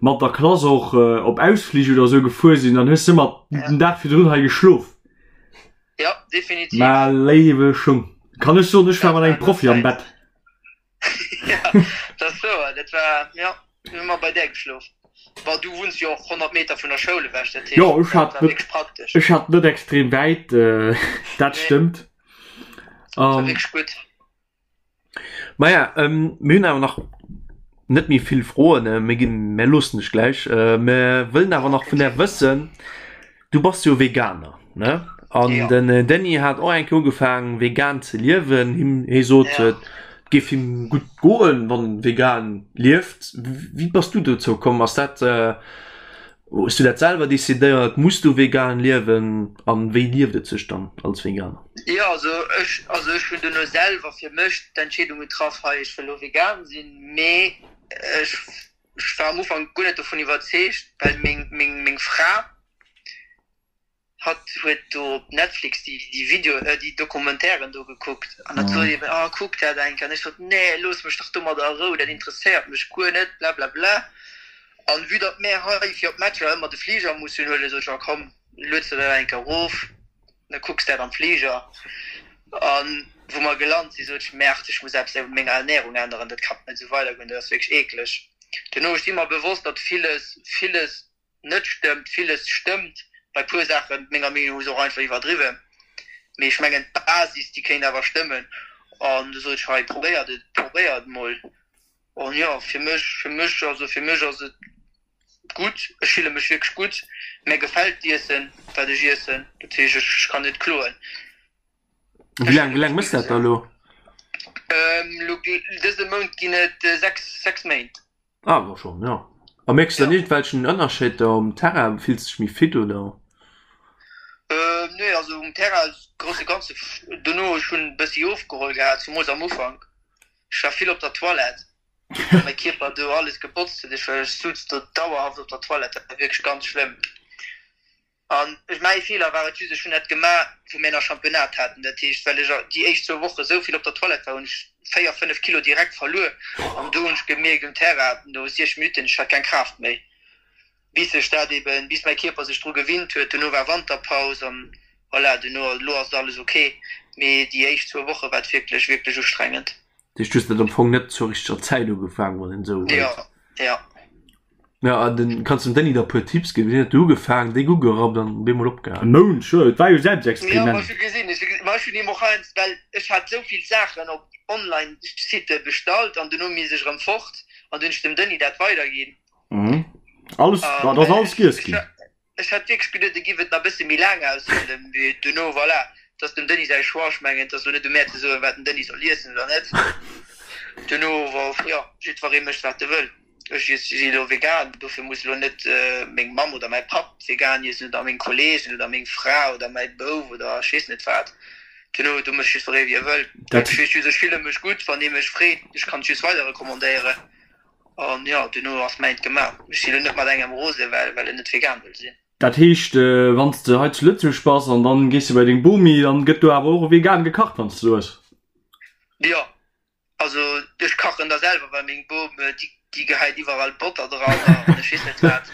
S2: mat der Klass och op Ausflich oder sou gefuer sinn, dann hues de ëmmer den Dag virdrun hei geschlof.
S3: Jo, definitiv.
S2: Mä léiwe Schung, kann ech soen, ech war mat engem Profi am Bett.
S3: Ja, dat ass wouer, dat war, jo, mir hu ëmmer bei där geschlof. Bon, du wunns jo och 100 Meter vun der Schoul ewech, dat heescht,
S2: Jo, ech
S3: dat
S2: hat
S3: war
S2: net,
S3: wierklech praktesch.
S2: ech hat net extrem wäit, dat
S3: Nee,
S2: stëmmt.
S3: dat war wierklech gutt.
S1: Maja, mir hunn awer nach net méi vill Froen. Mir ginn, mir loossen dech gläich. Mir wëllen awer nach vun där wëssen, du bass jo Veganer, ne? An den Denis hat och eng Kéier ugefaangen, vegan ze liewen. Him, hie sot, et géif him gutt goen, wann en vegan lieft. Wéi bass du dozou komm? Ass dat Hues du dat selwer decidéiert? Muss du vegan liewen? An wéi lieft et sech dann als Veganer?
S3: Jo, also ech, also ech hunn duerno selwer fir mech d'Entscheedung getraff, hei ech wëll elo vegan sinn, mee ech war am Ufank guer net dovun iwwerzeegt, well meng, meng, meng Fra, Hatt huet do op Netflix déi Video, déi Documentairen do gekuckt an hatt sot eben, oh kuck dat eng Kéier. An ech sot, nee looss mech dach domadder a Rou, dat interesséiert mech guer net, blablabla. An vue datt mär hei fir op d'Matcher ëmmer de Fliger mussen huelen, sot ech, oh komm, lueds der dat eng Kéier erof, da kucks dat am Fliger. An wou mer gelant sinn, sot ech, merde, ech muss eppes u menger Ernährung änneren, dat kann net esou weidergoen, dat ass wierklech eekleg. Duerno, ech si mer bewosst, datt villes, villes net stëmmt, villes stëmmt, bei puer Saachen, menger Meenung no, hu se och einfach iwwerdriwwen, mee ech mengen d'Basis déi kéint awer stëmmen an du sot ech hei probéiert et, probéiert et mol an jo fir mech, fir mech, also fir mech ass et gutt, ech fille mech wierklech gutt, mär gefält d'Iessen wat ech iessen, dat heescht ech kann net kloen.
S1: Wéi laang, wéi laang mëss dat da elo?
S3: Elo dëse Mount ginn et 6, 6 Méint.
S1: Ah, war schon, ja. A mierks du dann iergendwelchen Ënnerscheed da um Terrain? Fills du dech méi fit oder?
S3: Ähm, nee, also um Terrain grosse ganze dono ech hunn bëssi ofgeholl gehat, zumools am Ufank. Ech war vill op der Toilette, well mäi Kierper do alles gebotzt huet. Ech war ech sutz do dauerhaft op der Toilette, dat war wierklech ganz schlëmm. An ech, mäi Feeler war et just, ech hunn dat gemaach, wou mir nach Championnat haten. Dat heescht, well ech déi éischt zwou Woche sou vill op der Toilette war, hunn ech véier, fënnef Kilo direkt verluer. An do hunn ech gemierkt um Terrain, no 60 Minutten, ech hat keng Kraaft méi. Bis sech dat eben, bis mäi Kierper sech dru gewinnt huet. Duerno war Wanterpaus an voilà, duerno, elo ass et alles ok. Mee déi éischt zwou Woche war et wierklech, wierklech ustrengend.
S1: Dat heescht, du hues dat am Fong net zur richteger Zäit ugefaangen, wann een esou
S3: wëllt? Jo, jo.
S1: Ja, an den kanns dem Denis der puer Tipps ginn. Wéi huet de ugefaangen, déck ugerappt an bemol opgehalen?
S2: E Mount, sure, et war jo
S3: Ja,
S2: Selbstexperiment.
S3: ma ech hu gesinn, ech hu gesinn, ma ech hunn him och heiansdo, well ech hat esou vill Saachen op Online-Sitte bestallt an duerno mi sech erëm fort an du hunn ech dem Denis dat weiderginn.
S2: Mhm. Alles,
S3: An
S2: dat ass alles
S3: ech,
S2: giess
S3: ech,
S2: ginn.
S3: ech hat wierklech geduet, e giff et nach bësse méi laang aushalen, mee duerno, voilà, et ass dem Denis säi Choix, ech mengen, et ass elo net u mär ze soen, wat den Denis soll iessen oder net. Duerno, jo, jiddweree mécht wat e wëll. Ech si elo vegan, dofir muss elo net meng Mamm oder mäi Papp vegan iessen oder meng Kolleegen oder meng Fra oder mäi Bouf oder ech weess net wat. Duerno, do mécht jiddweree wéi e wëll.
S2: Dat.
S3: Ech weess just, ech fille mech gutt, wann ee mech freet, ech kann et just weider recommandéieren an jo, duerno ass mäint gemaach. Ech si elo net mat engem rose well well en net vegan wëll sinn.
S2: Dat heescht, wann s de hei zu Lëtzebuerg bass an dann gees de bei deng Bomi, dann gëtt do awer och vegan gekacht, wann s de do hues?
S3: Jo, Also ech kachen da selwer, well meng Bom déi gehäit iwwerall Botter dran an ech weess net wat.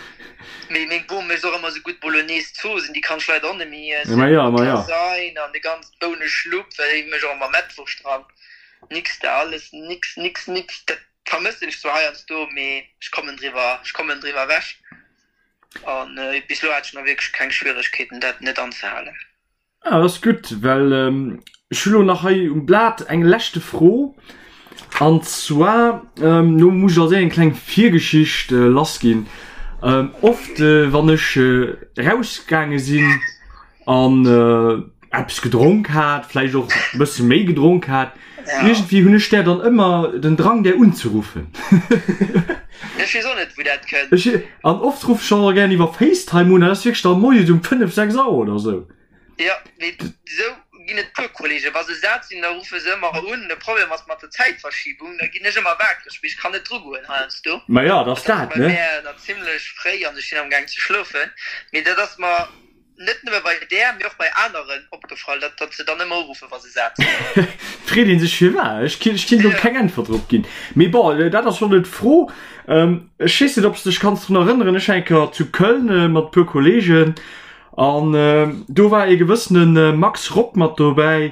S3: Mee meng Bom mécht och ëmmer esou gutt Bolognese Zooss, déi kann ech leider och net méi iessen.
S2: Ma jo, ma jo.
S3: Lasagne an de ganze Bouneschlupp, well déi mécht och ëmmer Mettwurscht dran. Nix da, alles nix, nix, nix. Dat vermëssen ech zwar heiansdo, mee ech kommen driwwer, ech kommen driwwer ewech. An bis elo hat ech nach wierklech keng Schwieregkeeten dat net anzehalen.
S2: Ah, dat ass gutt, well ech hu lo nach hei um Blat eng leschte Fro. An zwar, do muss ech als éischt eng kleng Virgeschicht lassginn. Oft, wann ech erausgaange sinn an eppes gedronk hat, vläicht och e bësse méi gedronk hat, iergendwéi hunn ech där dann ëmmer den Drang, där unzeruffen.
S3: Ech weess och net, wou dat kënnt.
S2: Ech, an oft ruff ech och gären iwwer Facetime un, dat ass wierklech da moies um 5, 6 Auer oder sou.
S3: Jo, mee sou ginn et puer Kollegen, wa se sat sinn, da ruffe se ëmmer un. De Problem ass mat der Zäitverschiebung, da ginn ech ëmmer waakreg, mee ech kann net drugoen heiansdo.
S2: Ma jo, dat ass
S3: Dat ass
S2: dat,
S3: bei
S2: ne?
S3: mär nach zimlech fréi an ech sinn amgaang ze schlofen. Mee dat ass mer. Net nëmme bei där, mee och bei aneren opgefall, datt datt se dann ëmmer uruffen, wa se sat sinn.
S2: Freet een sech firwat. Ech kinn ech kinn do keng Äntwert drop ginn. Mee bon, dat ass schonn net d'Fro. Ech weess net, ob s de dech kanns drun erënneren, ech war eng Kéier zu Köln mat e puer Kolleegen an do war ee gewëssene Max Rock mat dobäi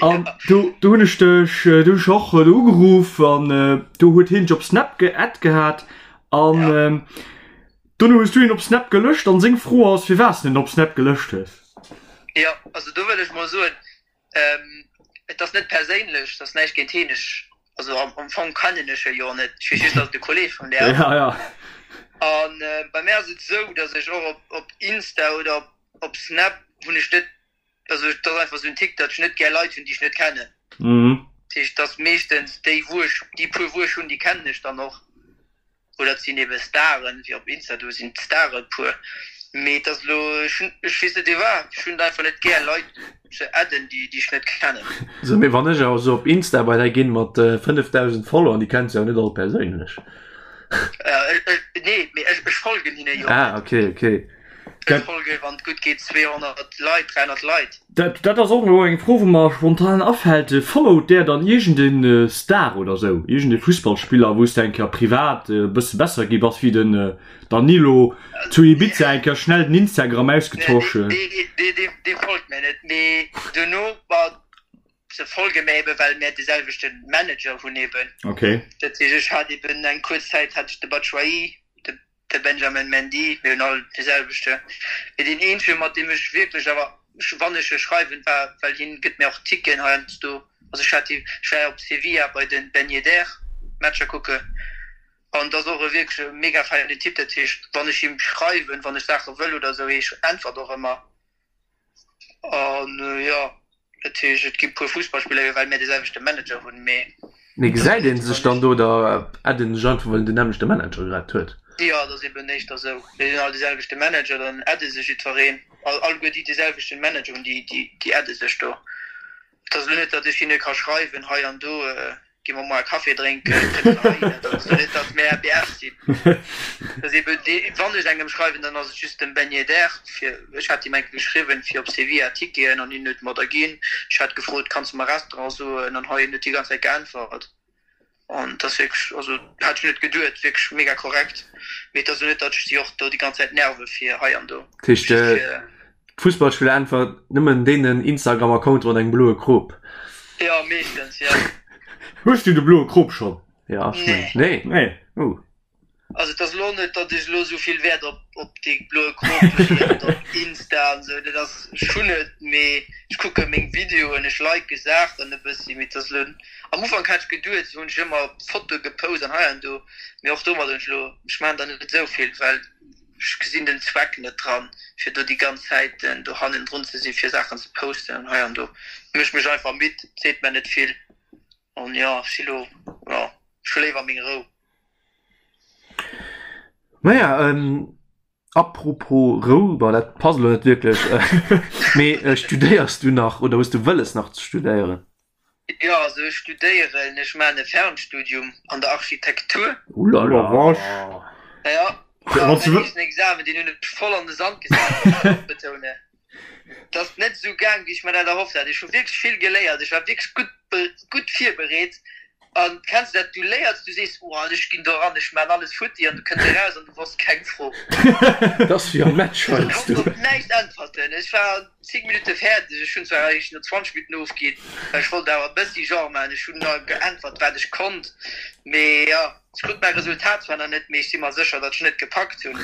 S2: an do do hunn ech dech do hunn ech och do ugeruff an do huet hien dech op Snap geadd gehat an Dono hues du hien op Snap gelöscht an seng Fro ass firwat s de en op Snap gelöscht hues.
S3: Jo, also do wëll ech mol soen, et ass net perséinlech, et ass näischt géint hien, ech, also am Fong kennen ech e jo net, ech weess just, datt et e Kolleg vun där ass.
S2: Ja, ja.
S3: An bei mär ass et esou, datt ech och op op Insta oder op op Snap hunn ech net, also et ass einfach esou en Tick, datt ech net gär Leit hunn, déi ech net kennen. Dat heescht, et ass meeschtens déi wou ech, déi puer wou ech hunn, déi kennen ech dann och. Oder et sinn ebe Staren, wéi op Insta, do sinn d'Stare e puer. Mee et ass elo, ech hunn, ech weess net iwwer, ech hunn et einfach net gär Leit ze adden, déi déi ech net kennen.
S1: Sou, mee wann ech awer sou op Insta bei där ginn mat 5.000 Follower, déi kenns de jo net all perséinlech.
S3: Nee, mee ech ech folgen hinne jo
S1: net. Ah, okay, okay.
S3: Ech folge, wann et gutt geet, 200 Leit, 300 Leit.
S2: Dat, dat ass och elo eng Fro, wou mer spontan afält. Followt där dann iergend e Star oder sou, iergend e Fussballspiller, wou s de eng Kéier privat e bësse besser gi bass wéi den Danilo zu Ibiza, eng Kéier schnell den Instagram ausgetosch?
S3: Nee, dee, dee, dee folgt mär net. Mee duerno, ma se folge mär eben, well mär de selwechte Manager hunn eben.
S2: Okay.
S3: Dat heescht, ech hat eben eng kuerz Zäit hat ech de Batshuayi, de De Benjamin Mendy, mir hunn all dee selwechte. Mee deen eenzege mat deem ech wierklech, awer wann ech e schreiwen, war, well hien gëtt mir och Ticketen heiansdo, also ech hat ech war op Sevilla bei de Ben Yedder Matcher kucken an et ass och e wierklech e mega feinen Typ. Dat heescht, wann ech him schreiwen, wann ech Saache wëll oder esou, hie äntwert och ëmmer. An jo, dat heescht, et gi puer Fussballspiller, jo, well mir de selwechte Manager hunn, mee.
S1: Mee gesäit ee sech dann do oder addet een sech einfach, well een den nämmlechte Manager grad huet?
S3: Jo, et ass eben éischter esou, mir hunn all de selwechte Manager, dann adde sech jiddwereen, alleguer déi de selwechten Manager hunn, déi, déi adde sech do. Et ass elo net, datt ech hinne ka schreiwen, hei an do gi mer moar Café drénken, kënnt der heihinner. Dat ass elo net, datt mär BF sinn. Dat ass ebe dee, wann ech engem schreiwen, dann ass et just dem Ben Yedder, fir, ech hat him eng Kéier geschriwwen, fir op Sevilla Ticketen an hien huet mer der ginn. Ech hat gefrot, kanns de mer Restaurant soen an hei, hien huet déi ganz Zäit geäntwert. An et ass wierklech, also hat ech net geduet, wierklech mega korrekt. Mee et ass elo net, datt ech si och do déi ganz Zäit nerve fir hei an do.
S1: Dat heescht, d'Fussballspiller äntwert nëmmen deenen Instagram-Accounte mat engem bloe Krop?
S3: Jo, meeschtens, jo.
S2: Hues du de bloe Krop schonn?
S1: Jo, ech mengen. Nee?
S2: Nee.
S1: Oh.
S3: Also et ass elo net, datt ech elo esou vill Wäert op op dee bloe Krop leeën an op Insta an esou. Dat ass, ech hunn et, mee ech kucke meng Videoen, ech like Saachen e bëssi, mee et ass elo, am Ufank hat ech geduet, esou hunn ech ëmmer Fotoe gepost an hei an do, mee och domat hunn ech elo, ech maachen der net esou vill, well ech gesinn den Zweck net dran, fir do déi ganz Zäit do hannendrun ze sinn, fir Saachen ze posten an hei an do. Mécht mech einfach midd, seet mer net vill an jo, ech si elo, jo, ech hu léiwer meng Rou.
S1: Naja, ähm, apropos Rou, bon, dat passt elo net wierklech, mee äh, studéiers du nach oder hues du wëlles nach ze studéieren?
S3: Jo, also ech studéieren, ech maachen e Fernstudium an der Architektur.
S1: Ulala.
S3: Ja, a mäin éischten Examen, deen hunn ech voll an de Sand gesat, muss ech och betounen. Et ass net esou gaang, wéi ech mer dat erhofft hat. Ech hu wierklech vill geléiert, ech war wierklech gutt, gutt virbereet. An kenns de dat, du léiers, du sees, oh ech ginn do eran, ech maan alles futti, an du kënns eraus an du wosst keng Fro.
S1: Dat ass wéi am Match
S3: Ech
S1: heiansdo.
S3: konnt op näischt äntwerten. Ech war an 10 Minutte fäerdeg. Ech hunn zwar eréischt no 20 Minutten ofginn, well ech wollt awer e bëssi Genre maachen. Ech hunn da geäntwert, wat ech konnt. Mee jo, ech krut mäi Resultat zwar nach net, mee ech si mer sécher, datt ech net gepackt hunn.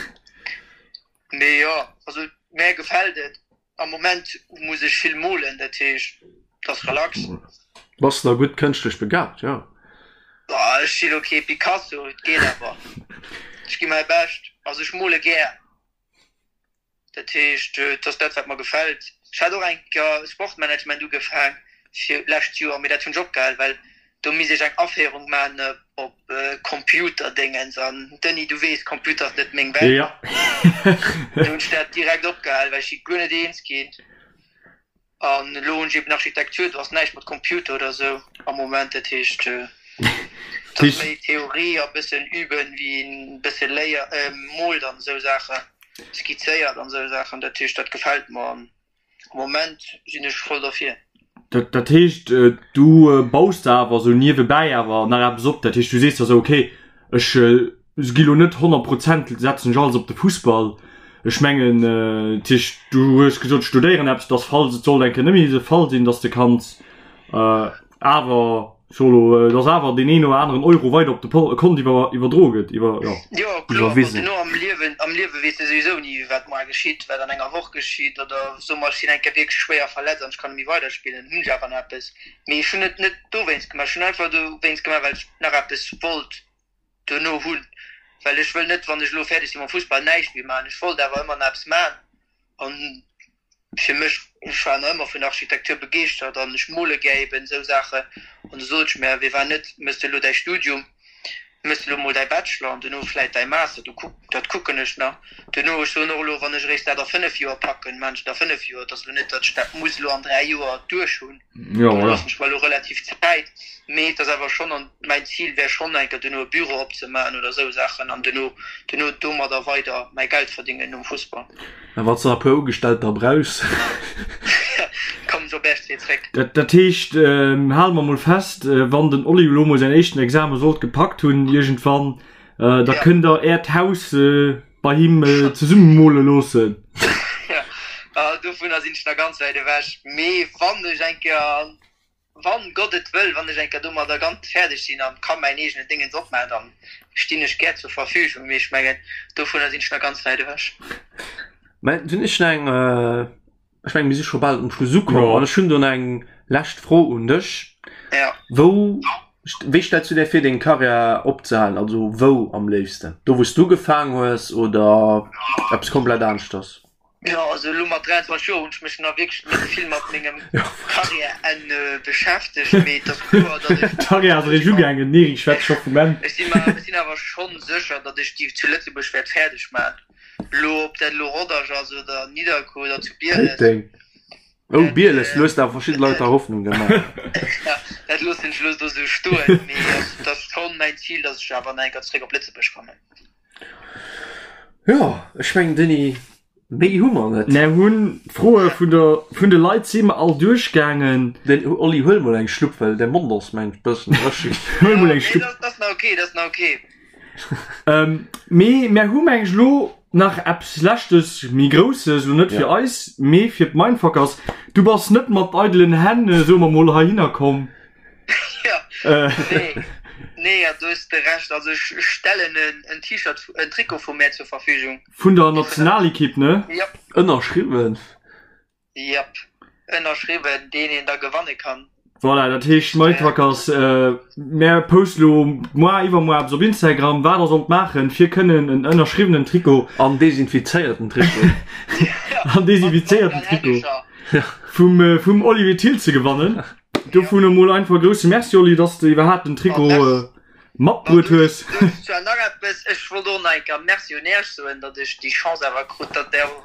S3: Mee jo, also mär gefält et. Am Moment muss ech vill molen, dat heescht et ass relax.
S1: Bass na gutt kënschtlech begabt, jo.
S3: Bah, ech si lo kee Picasso, et geet awer. Ech gi mäi Bescht. Also ech mole gär, dat heescht et ass dat wat mer gefält. Ech hat och eng Kéier Sportmanagement ugefaang fir lescht Joer, mee dat hunn ech opgehal, well do misst ech eng Aféierung man op Computerdéngens an Denis, du weess, Computer ass net meng Welt.
S2: Ja.
S3: Du hunn ech dat direkt opgehal, well ech si guer net eens ginn. An elo hunn ech eben Architektur, do ass näischt mat Computer oder sou am Moment. Dat heescht, et ass méi Theorie a bëssen üben, wéi een bësse léier, moolt an esou Saachen. skizzéiert an esou Saachen. Dat heescht, dat gefält mer an am Moment sinn ech voll derfir.
S2: Dat, dat heescht, du baus der awer esou niewebäi awer nach eppes op. Dat heescht, du sees der esou, okay, ech gi lo net 100 Prozent, setzen ech alles op de Fussball. Ech mengen, dat heescht, du hues gesot, ech studéieren eppes, dass falls et sollt eng Kéier net méi de Fall sinn, dass de kanns awer Solo, dass awer deen een oder aneren Euro weider op de Kont iwwerdroe gëtt, iwwer,
S3: jo. Jo, kloer, ma duerno am Liewen, am Liewe weess de souwisou ni, wat moar geschitt, wat an enger Woch geschitt, oder soe mer, ech sinn eng Kéier wierklech schwéier verletzt an ech kann net méi weiderspillen, hunn ech awer nach eppes. Mee ech hunn et net dowéinst gemaach, ech hunn einfach dowéinst gemaach, well ech nach eppes wollt duerno hunn, well ech wëll net, wann ech elo fäerdeg si mam Fussball, näischt méi maachen. Ech wollt awer ëmmer nach eppes maachen an fir mech, ech war nach ëmmer vun der Architektur begeeschtert an ech mole gär eben esou Saachen an du sot ech mär, wéi war net, mëss de elo däi Studium, mëss de elo mol däi Bachelor an duerno vläit däi Master, du kuck, dat kucken ech nach duerno. Ech soen och elo, wann ech eréischt dat a 5 Joer packen, maan ech et a 5 Joer, et ass elo net, datt ech dat muss elo an 3 Joer duerch hunn, do loossen ech mer elo relativ Zäit, mee et ass awer schonn an mäin Zil wär schonn eng Kéier duerno e Büro opzemaachen oder esou Saachen an duerno, duerno domadder weider mäi Geld verdingen nom Fussball.
S1: A wann s de nach e puer Ugestellter brauchs.
S3: Kommen ech op Äerch zréck.
S2: Dat heescht, hale mer mol fest, wann den Oli elo mol säin éischten Exame sollt gepackt hunn iergendwann, da kënnt der Äert Haus bei him zesumme mole loossen.
S3: Jo, dovunner sinn ech nach ganz wäit ewech. Mee wann ech eng Kéier Wann Gott et wëll, wann ech eng Kéier domadder ganz fäerdeg sinn an ka mäin eegenen Déngens opmaachen, dann stinn ech gär zur Verfügung, mee ech mengen, dovunner sinn ech nach ganz wäit ewech.
S1: Mä dunn ech nach eng, ech mengen, mir si scho bal um Schluss ukomm an ech hunn do nach eng lescht Fro un dech.
S3: Ja.
S1: Wou, wéi stells du där vir, deng Karriär opzehalen? Also wou am léifsten? Do wou s du ugefaang hues oder eppes komplett aneschters?
S3: Jo, also elo mat 23 Joer hunn ech mech nach wierklech net vill mat mengem Karriärenn beschäftegt, mee et ass kloer, datt ech.
S2: D'Karriär ass eréischt ugaangen, den Eric schwätzt scho vum Enn.
S3: Ech si mer, ech sinn awer schonn sécher, datt ech déi zu Lëtzebuerg wäert fäerdeg maachen. Elo, ob dat elo Rodange ass oder Nidderkuer oder zu Bieles.
S1: Péiteng. Oh, Bieles, du hues awer verschidde Leit da Hoffnung gemaach.
S3: Dat loossen ech elo do sou stoen, mee et ass schonn mäin Zil, datt ech awer nach eng Kéier zeréck op Lëtzebuerg kommen.
S1: Jo, ech mengen Denis, méi hu mer net.
S2: Mär hunn d'Froe vun der, vun de Leit si mer all duerchgaangen.
S1: Den Oli, huel mol eng Schlupp, well däi Mond ass mengt bëssen dréchen.
S2: Huel mol eng Schlupp.
S3: Nee, dat ass nach ok, dat ass nach ok.
S2: Mee mär hu meng ech elo nach eppes Leschtes, méi Grousses, elo net fir eis, mee fir d'Mindfuckers. Du bass net mat eidelen Hänn, soe mer mol, heihinner komm.
S3: Ja, nee, nee, ja, du hues de Recht. Also ech stellen en, en T-Shirt, en Trikot vu mär zur Verfügung.
S2: Vun der Nationalekipp, ne?
S3: Jep.
S1: Ënnerschriwwen.
S3: Jep, ënnerschriwwen, deen een da gewanne kann.
S2: Voilà, dat heescht, Mindfuckers, mär poste lo moar, iwwermoar eppes op Instagram, wat der sollt maachen, fir kënnen en ënnerschriwwenen Trikot.
S1: An desinfizéierten Trikot.
S2: An desinfizéierten Trikot vum, vum Olivier Thill ze gewannen. Dovun emol einfach e grousse Merci, Oli, dass de iwwerhaapt den Trikot matbruet hues.
S3: Zwar nach eppes, ech wollt och nach eng Kéier Merci un Iech soen, datt ech déi Chance awer krut, datt Der och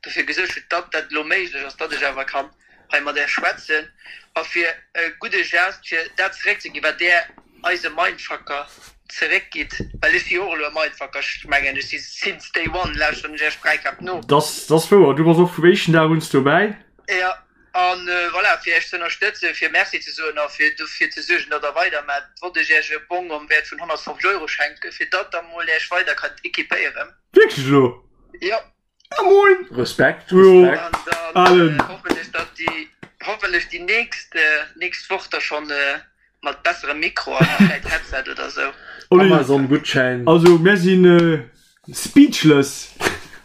S3: dofir gesuergt hutt, datt dat elo méiglech ass, datt ech awer kann hei mat Iech schwätzen. A fir e gudde Geste, fir dat zeréckzeginn, wat Der eise Mindfucker zeréckgitt, well ech si jo och elo e Mindfucker, ech mengen, ech si since day one, lauschteren ech Iech Bräikap no.
S2: Dass ass wouer, du bass och vum éischten Dag un dobäi.
S3: Jo. An voilà, fir Iech ze ënnerstëtzen, fir Merci ze soen a fir dofir ze suergen, datt Der weidermaacht, wollt ech Iech e Bong am Wäert vun 150 Euro schenken, fir datt Der mol Iech weider kënnt equipéieren.
S2: Wierklech elo?
S3: Jo.
S2: Ah moin!
S1: Respekt, Respekt.
S3: An dann hoffen ech, datt déi, hoffentlech déi nächst, nächst Woch da schonn mat besserem Mikro an vläit Headset oder sou.
S1: Amazon-Gutschäin.
S2: Also mär sinn speechless.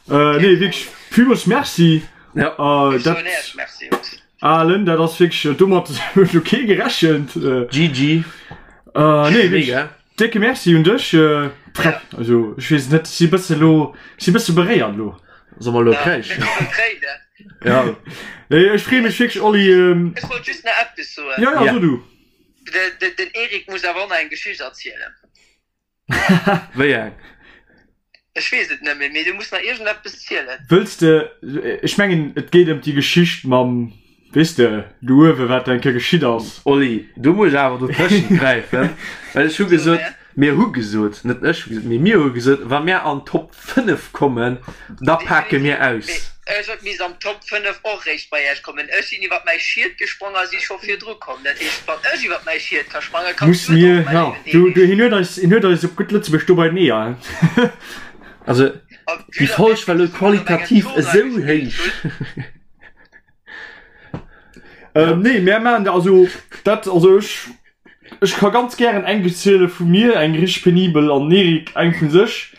S2: Nee wierklech villmools Merci.
S1: Ja.
S3: Ech soen Iech Merci, Jungs.
S2: Alen, dat ass wierklech, domat huet elo kee gerechent.
S1: GG.
S2: Nee wierklech décke Merci un dech. Freck, also ech weess et net, ech si bësse lo, ech si bësse beréiert elo.
S1: Soll mer elo kréischen?
S2: Ja. Nee, ech freeë mech wierklech, Oli.
S3: Ech wollt just nach eppes soen.
S2: Ja, ja, so du.
S3: Den Eric muss awer och nach eng Geschicht erzielen.
S1: Wéi eng?
S3: Ech weess et net méi, mee du muss nach iergendeppes zielen.
S2: Wëlls de, ech mengen, et geet ëm déi Geschicht mam, weess de, do uewe, wat eng Kéier geschitt ass.
S1: Oli, do muss ech awer dotëschent gräifen, well ech hu gesot. Mir hu gesot, net ech hu gesot, mee mir hu gesot, wa mir an d'Top 5 kommen, da pake mir aus.
S3: Mee ech huet misst am Top 5 och réischt bei Iech kommen. Ech sinn iwwert mäi Schiet gesprong a si scho virdru komm. Dat heescht, wann ech iwwert mäi Schiet ka sprangen, kanns du et och, mäi léiwen Eric.
S2: Hien huet eis, hien huet eis op gutt Lëtzebuerg do bei den Eeër.
S1: Also, déi Folg war elo qualitativ esou héich.
S2: Nee, mär maachen, also dat, also ech, ech ka ganz gären eng ziele vu mir, eng richteg penibel, an den Eric eng vu sech.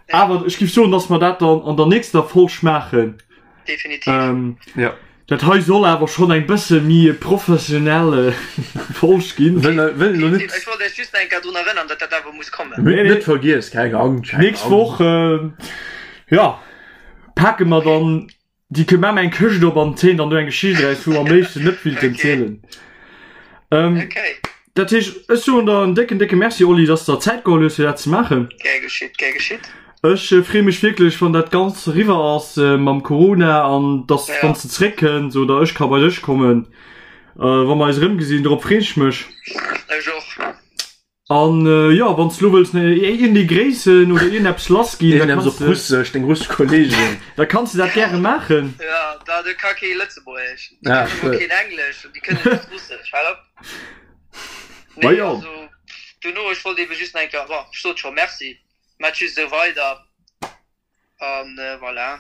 S2: Awer ech giff soen, dass mer dat dann an der nächster Folg maachen.
S3: Definitiv.
S1: Jo.
S2: Dat hei soll awer schonn eng bësse méi professionell Folg ginn.
S1: Wëll wëll elo net.
S3: Ech wollt iech just nach eng Kéier drun erënnern, datt dat awer muss kommen.
S1: Mir hunn net vergiess, keng Angscht, keng
S2: Nächst Woch, jo, pake mer dann Déi kënnt maan eng Këscht op an zéien dann do eng Geschicht eraus, wou mer am léifsten net willten zielen.
S3: Okay.
S2: Dat heescht, ech soen der en décken, décke Merci, Oli, dass de der Zäit geholl hues, fir dat ze maachen.
S3: Gär geschitt, gär geschitt.
S2: Ech freeë mech wierklech, wann dat Ganzt eriwwer ass mam Corona an dass, wann s de zeréckkënns oder ech ka bei dech kommen, wa mer eis erëmgesinn. Dorop freeën ech mech.
S3: Ech och.
S2: An jo, wann s lo wëlls iergendee gréissen oder iergendeppes lass ginn, da
S1: kanns de. Russesch, deng russesch Kollegen.
S2: Da kanns de dat gäre maachen.
S3: Jo, da do ka kee Lëtzebuergesch, déi kënnen emol keen Englesch an déi kënnen just Russesch. Hal op. Nee, also dono, ech wollt ebe just nach eng Kéier, bon, ech sot scho Merci, maacht just esou weider an voilà.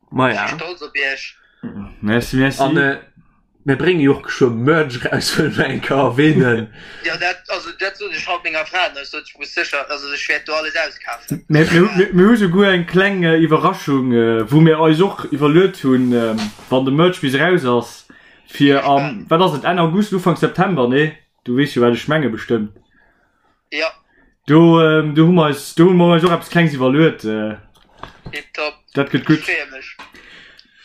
S1: Maja.
S3: Ech si stolz op iech.
S2: Merci, merci.
S1: An mir brénge jo och geschwë Merch eraus, wëlle mer eng Kéier erwähnen.
S3: Jo, dat, also dat sot ech haut menger Fra, ech sot, ech muss sécher, also ech wäert do alles auskafen.
S2: Mir, mir, mir hu souguer eng kleng Iwwerraschung, wou mir eis och iwwerluet hunn, wann de Merch bis eraus ass, fir am, wat ass et, Enn August, Ufank September, nee? Du weess jo, wat ech menge bestëmmt.
S3: Jo.
S2: Do, do hu mer eis, do hu mer eis och eppes Klengs iwwerluet.
S3: Tiptop.
S2: Dat gëtt gutt.
S3: Ech freeë mech.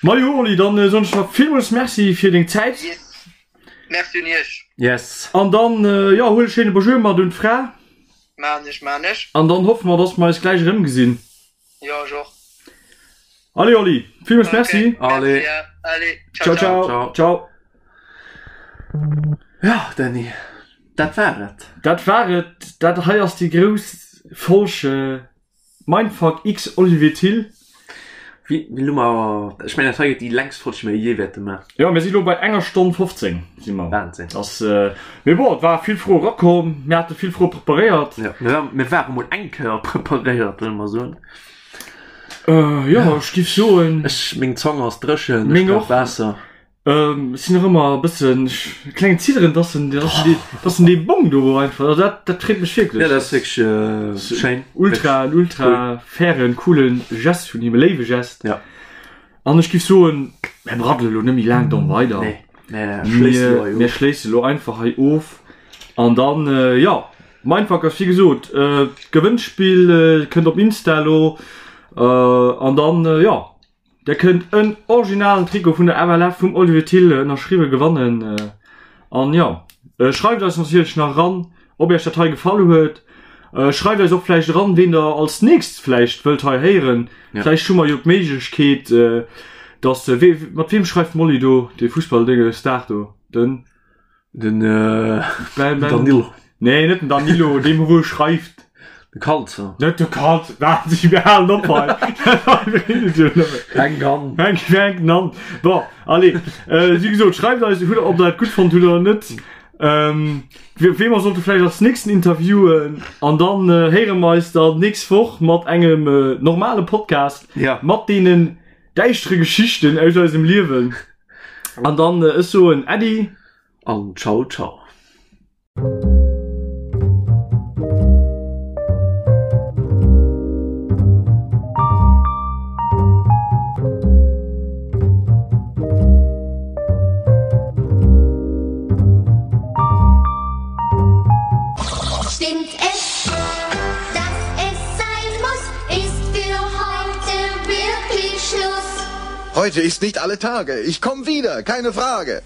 S2: Majo Oli, dann soen ech der villmools Merci fir deng Zäit.
S3: Yes. Merci un iech.
S1: Yes.
S2: An dann, jo, huel e schéine Bonjour mat un d'Fra.
S3: Maan ech, maan ech.
S2: An dann hoffe mer, dass mer eis gläich erëmgesinn.
S3: Jo, ech och.
S2: Allez Oli, villmools Merci.
S1: Allez.
S3: Allez,
S2: ciao ciao. Ciao.
S1: Ja, Dany, dat war et.
S2: Dat war et. Dat hei ass déi grouss Folg Mindfuck x Olivier Thill.
S1: Wéi elo mer, ech mengen dat hei gëtt déi längst Folg déi mer jee wäerte maachen.
S2: Jo, mir si lo bei enger Stonn 15 si mer.
S1: Wahnsinn.
S2: Ass, mee bon, et war vill Froe rakomm, mir hate vill Froe preparéiert.
S1: Jo, mir war, mir ware mol eng Kéier preparéiert, wëlle mer soen.
S2: Jo, ech giff soen.
S1: Ech, meng Zong ass dréchen, ech
S2: Meng
S1: brauch
S2: och.
S1: Waasser.
S2: Ech sinn nach ëmmer e bëssen, e klengen Zidderen, dass en, dass en dee, dass en dee Bong do einfach, also dat, dat freet mech wierklech.
S1: Jo, dat ass wierklech schéin.
S2: Ultra, en ultra fairen, coolen Gest vun him, e léiwe Gest.
S1: Ja.
S2: An ech giff soen, mär braddele lo net méi laang domm weider.
S1: Nee, mär schléissen elo hei of.
S2: Mär schléissen elo einfach hei of. An dann, jo, Mindfuck ass wéi gesot, d'Gewënnspill kënnt op Insta elo. An dann, jo, der kënnt en originalen Trikot vun der FLF vum Olivier Thill ënnerschriwwe gewannen. An jo, schreift eis natierlech nach eran, ob iech dat hei gefall huet. Schreift eis och vläicht eran, ween der als nächst vläicht wëllt hei héieren.
S1: Ja.
S2: Vläicht hu mer jo d'Méiglechkeet, dass, wee, mat weem schreift d'Molly do, dee Fussballdénge Star do, den?
S1: Den
S2: Ben, Ben,
S1: Danilo.
S2: Nee, net den Danilo, deem wou schreift.
S1: De Kalzer.
S2: Net de Kalzer, wat, mir halen op hei.
S1: Fänk an.
S2: Fänk, fänken an. Bon, allez, wéi gesot, schreift eis, hutt, ob der dat gutt fonnt hutt oder net. Ähm, wee mer sollte vläicht als nächsten interviewen an dann äh, héiere mer eis dann nächst Woch mat engem äh, normale Podcast
S1: ja.
S2: mat deenen däischtere Geschichten aus eisem Liewen. An dann äh, ech soen Äddi
S1: an ciao ciao.
S4: Stimmt es, dass es sein muss, ist für heute wirklich Schluss.
S5: Heute ist nicht alle Tage. Ich komm wieder, keine Frage.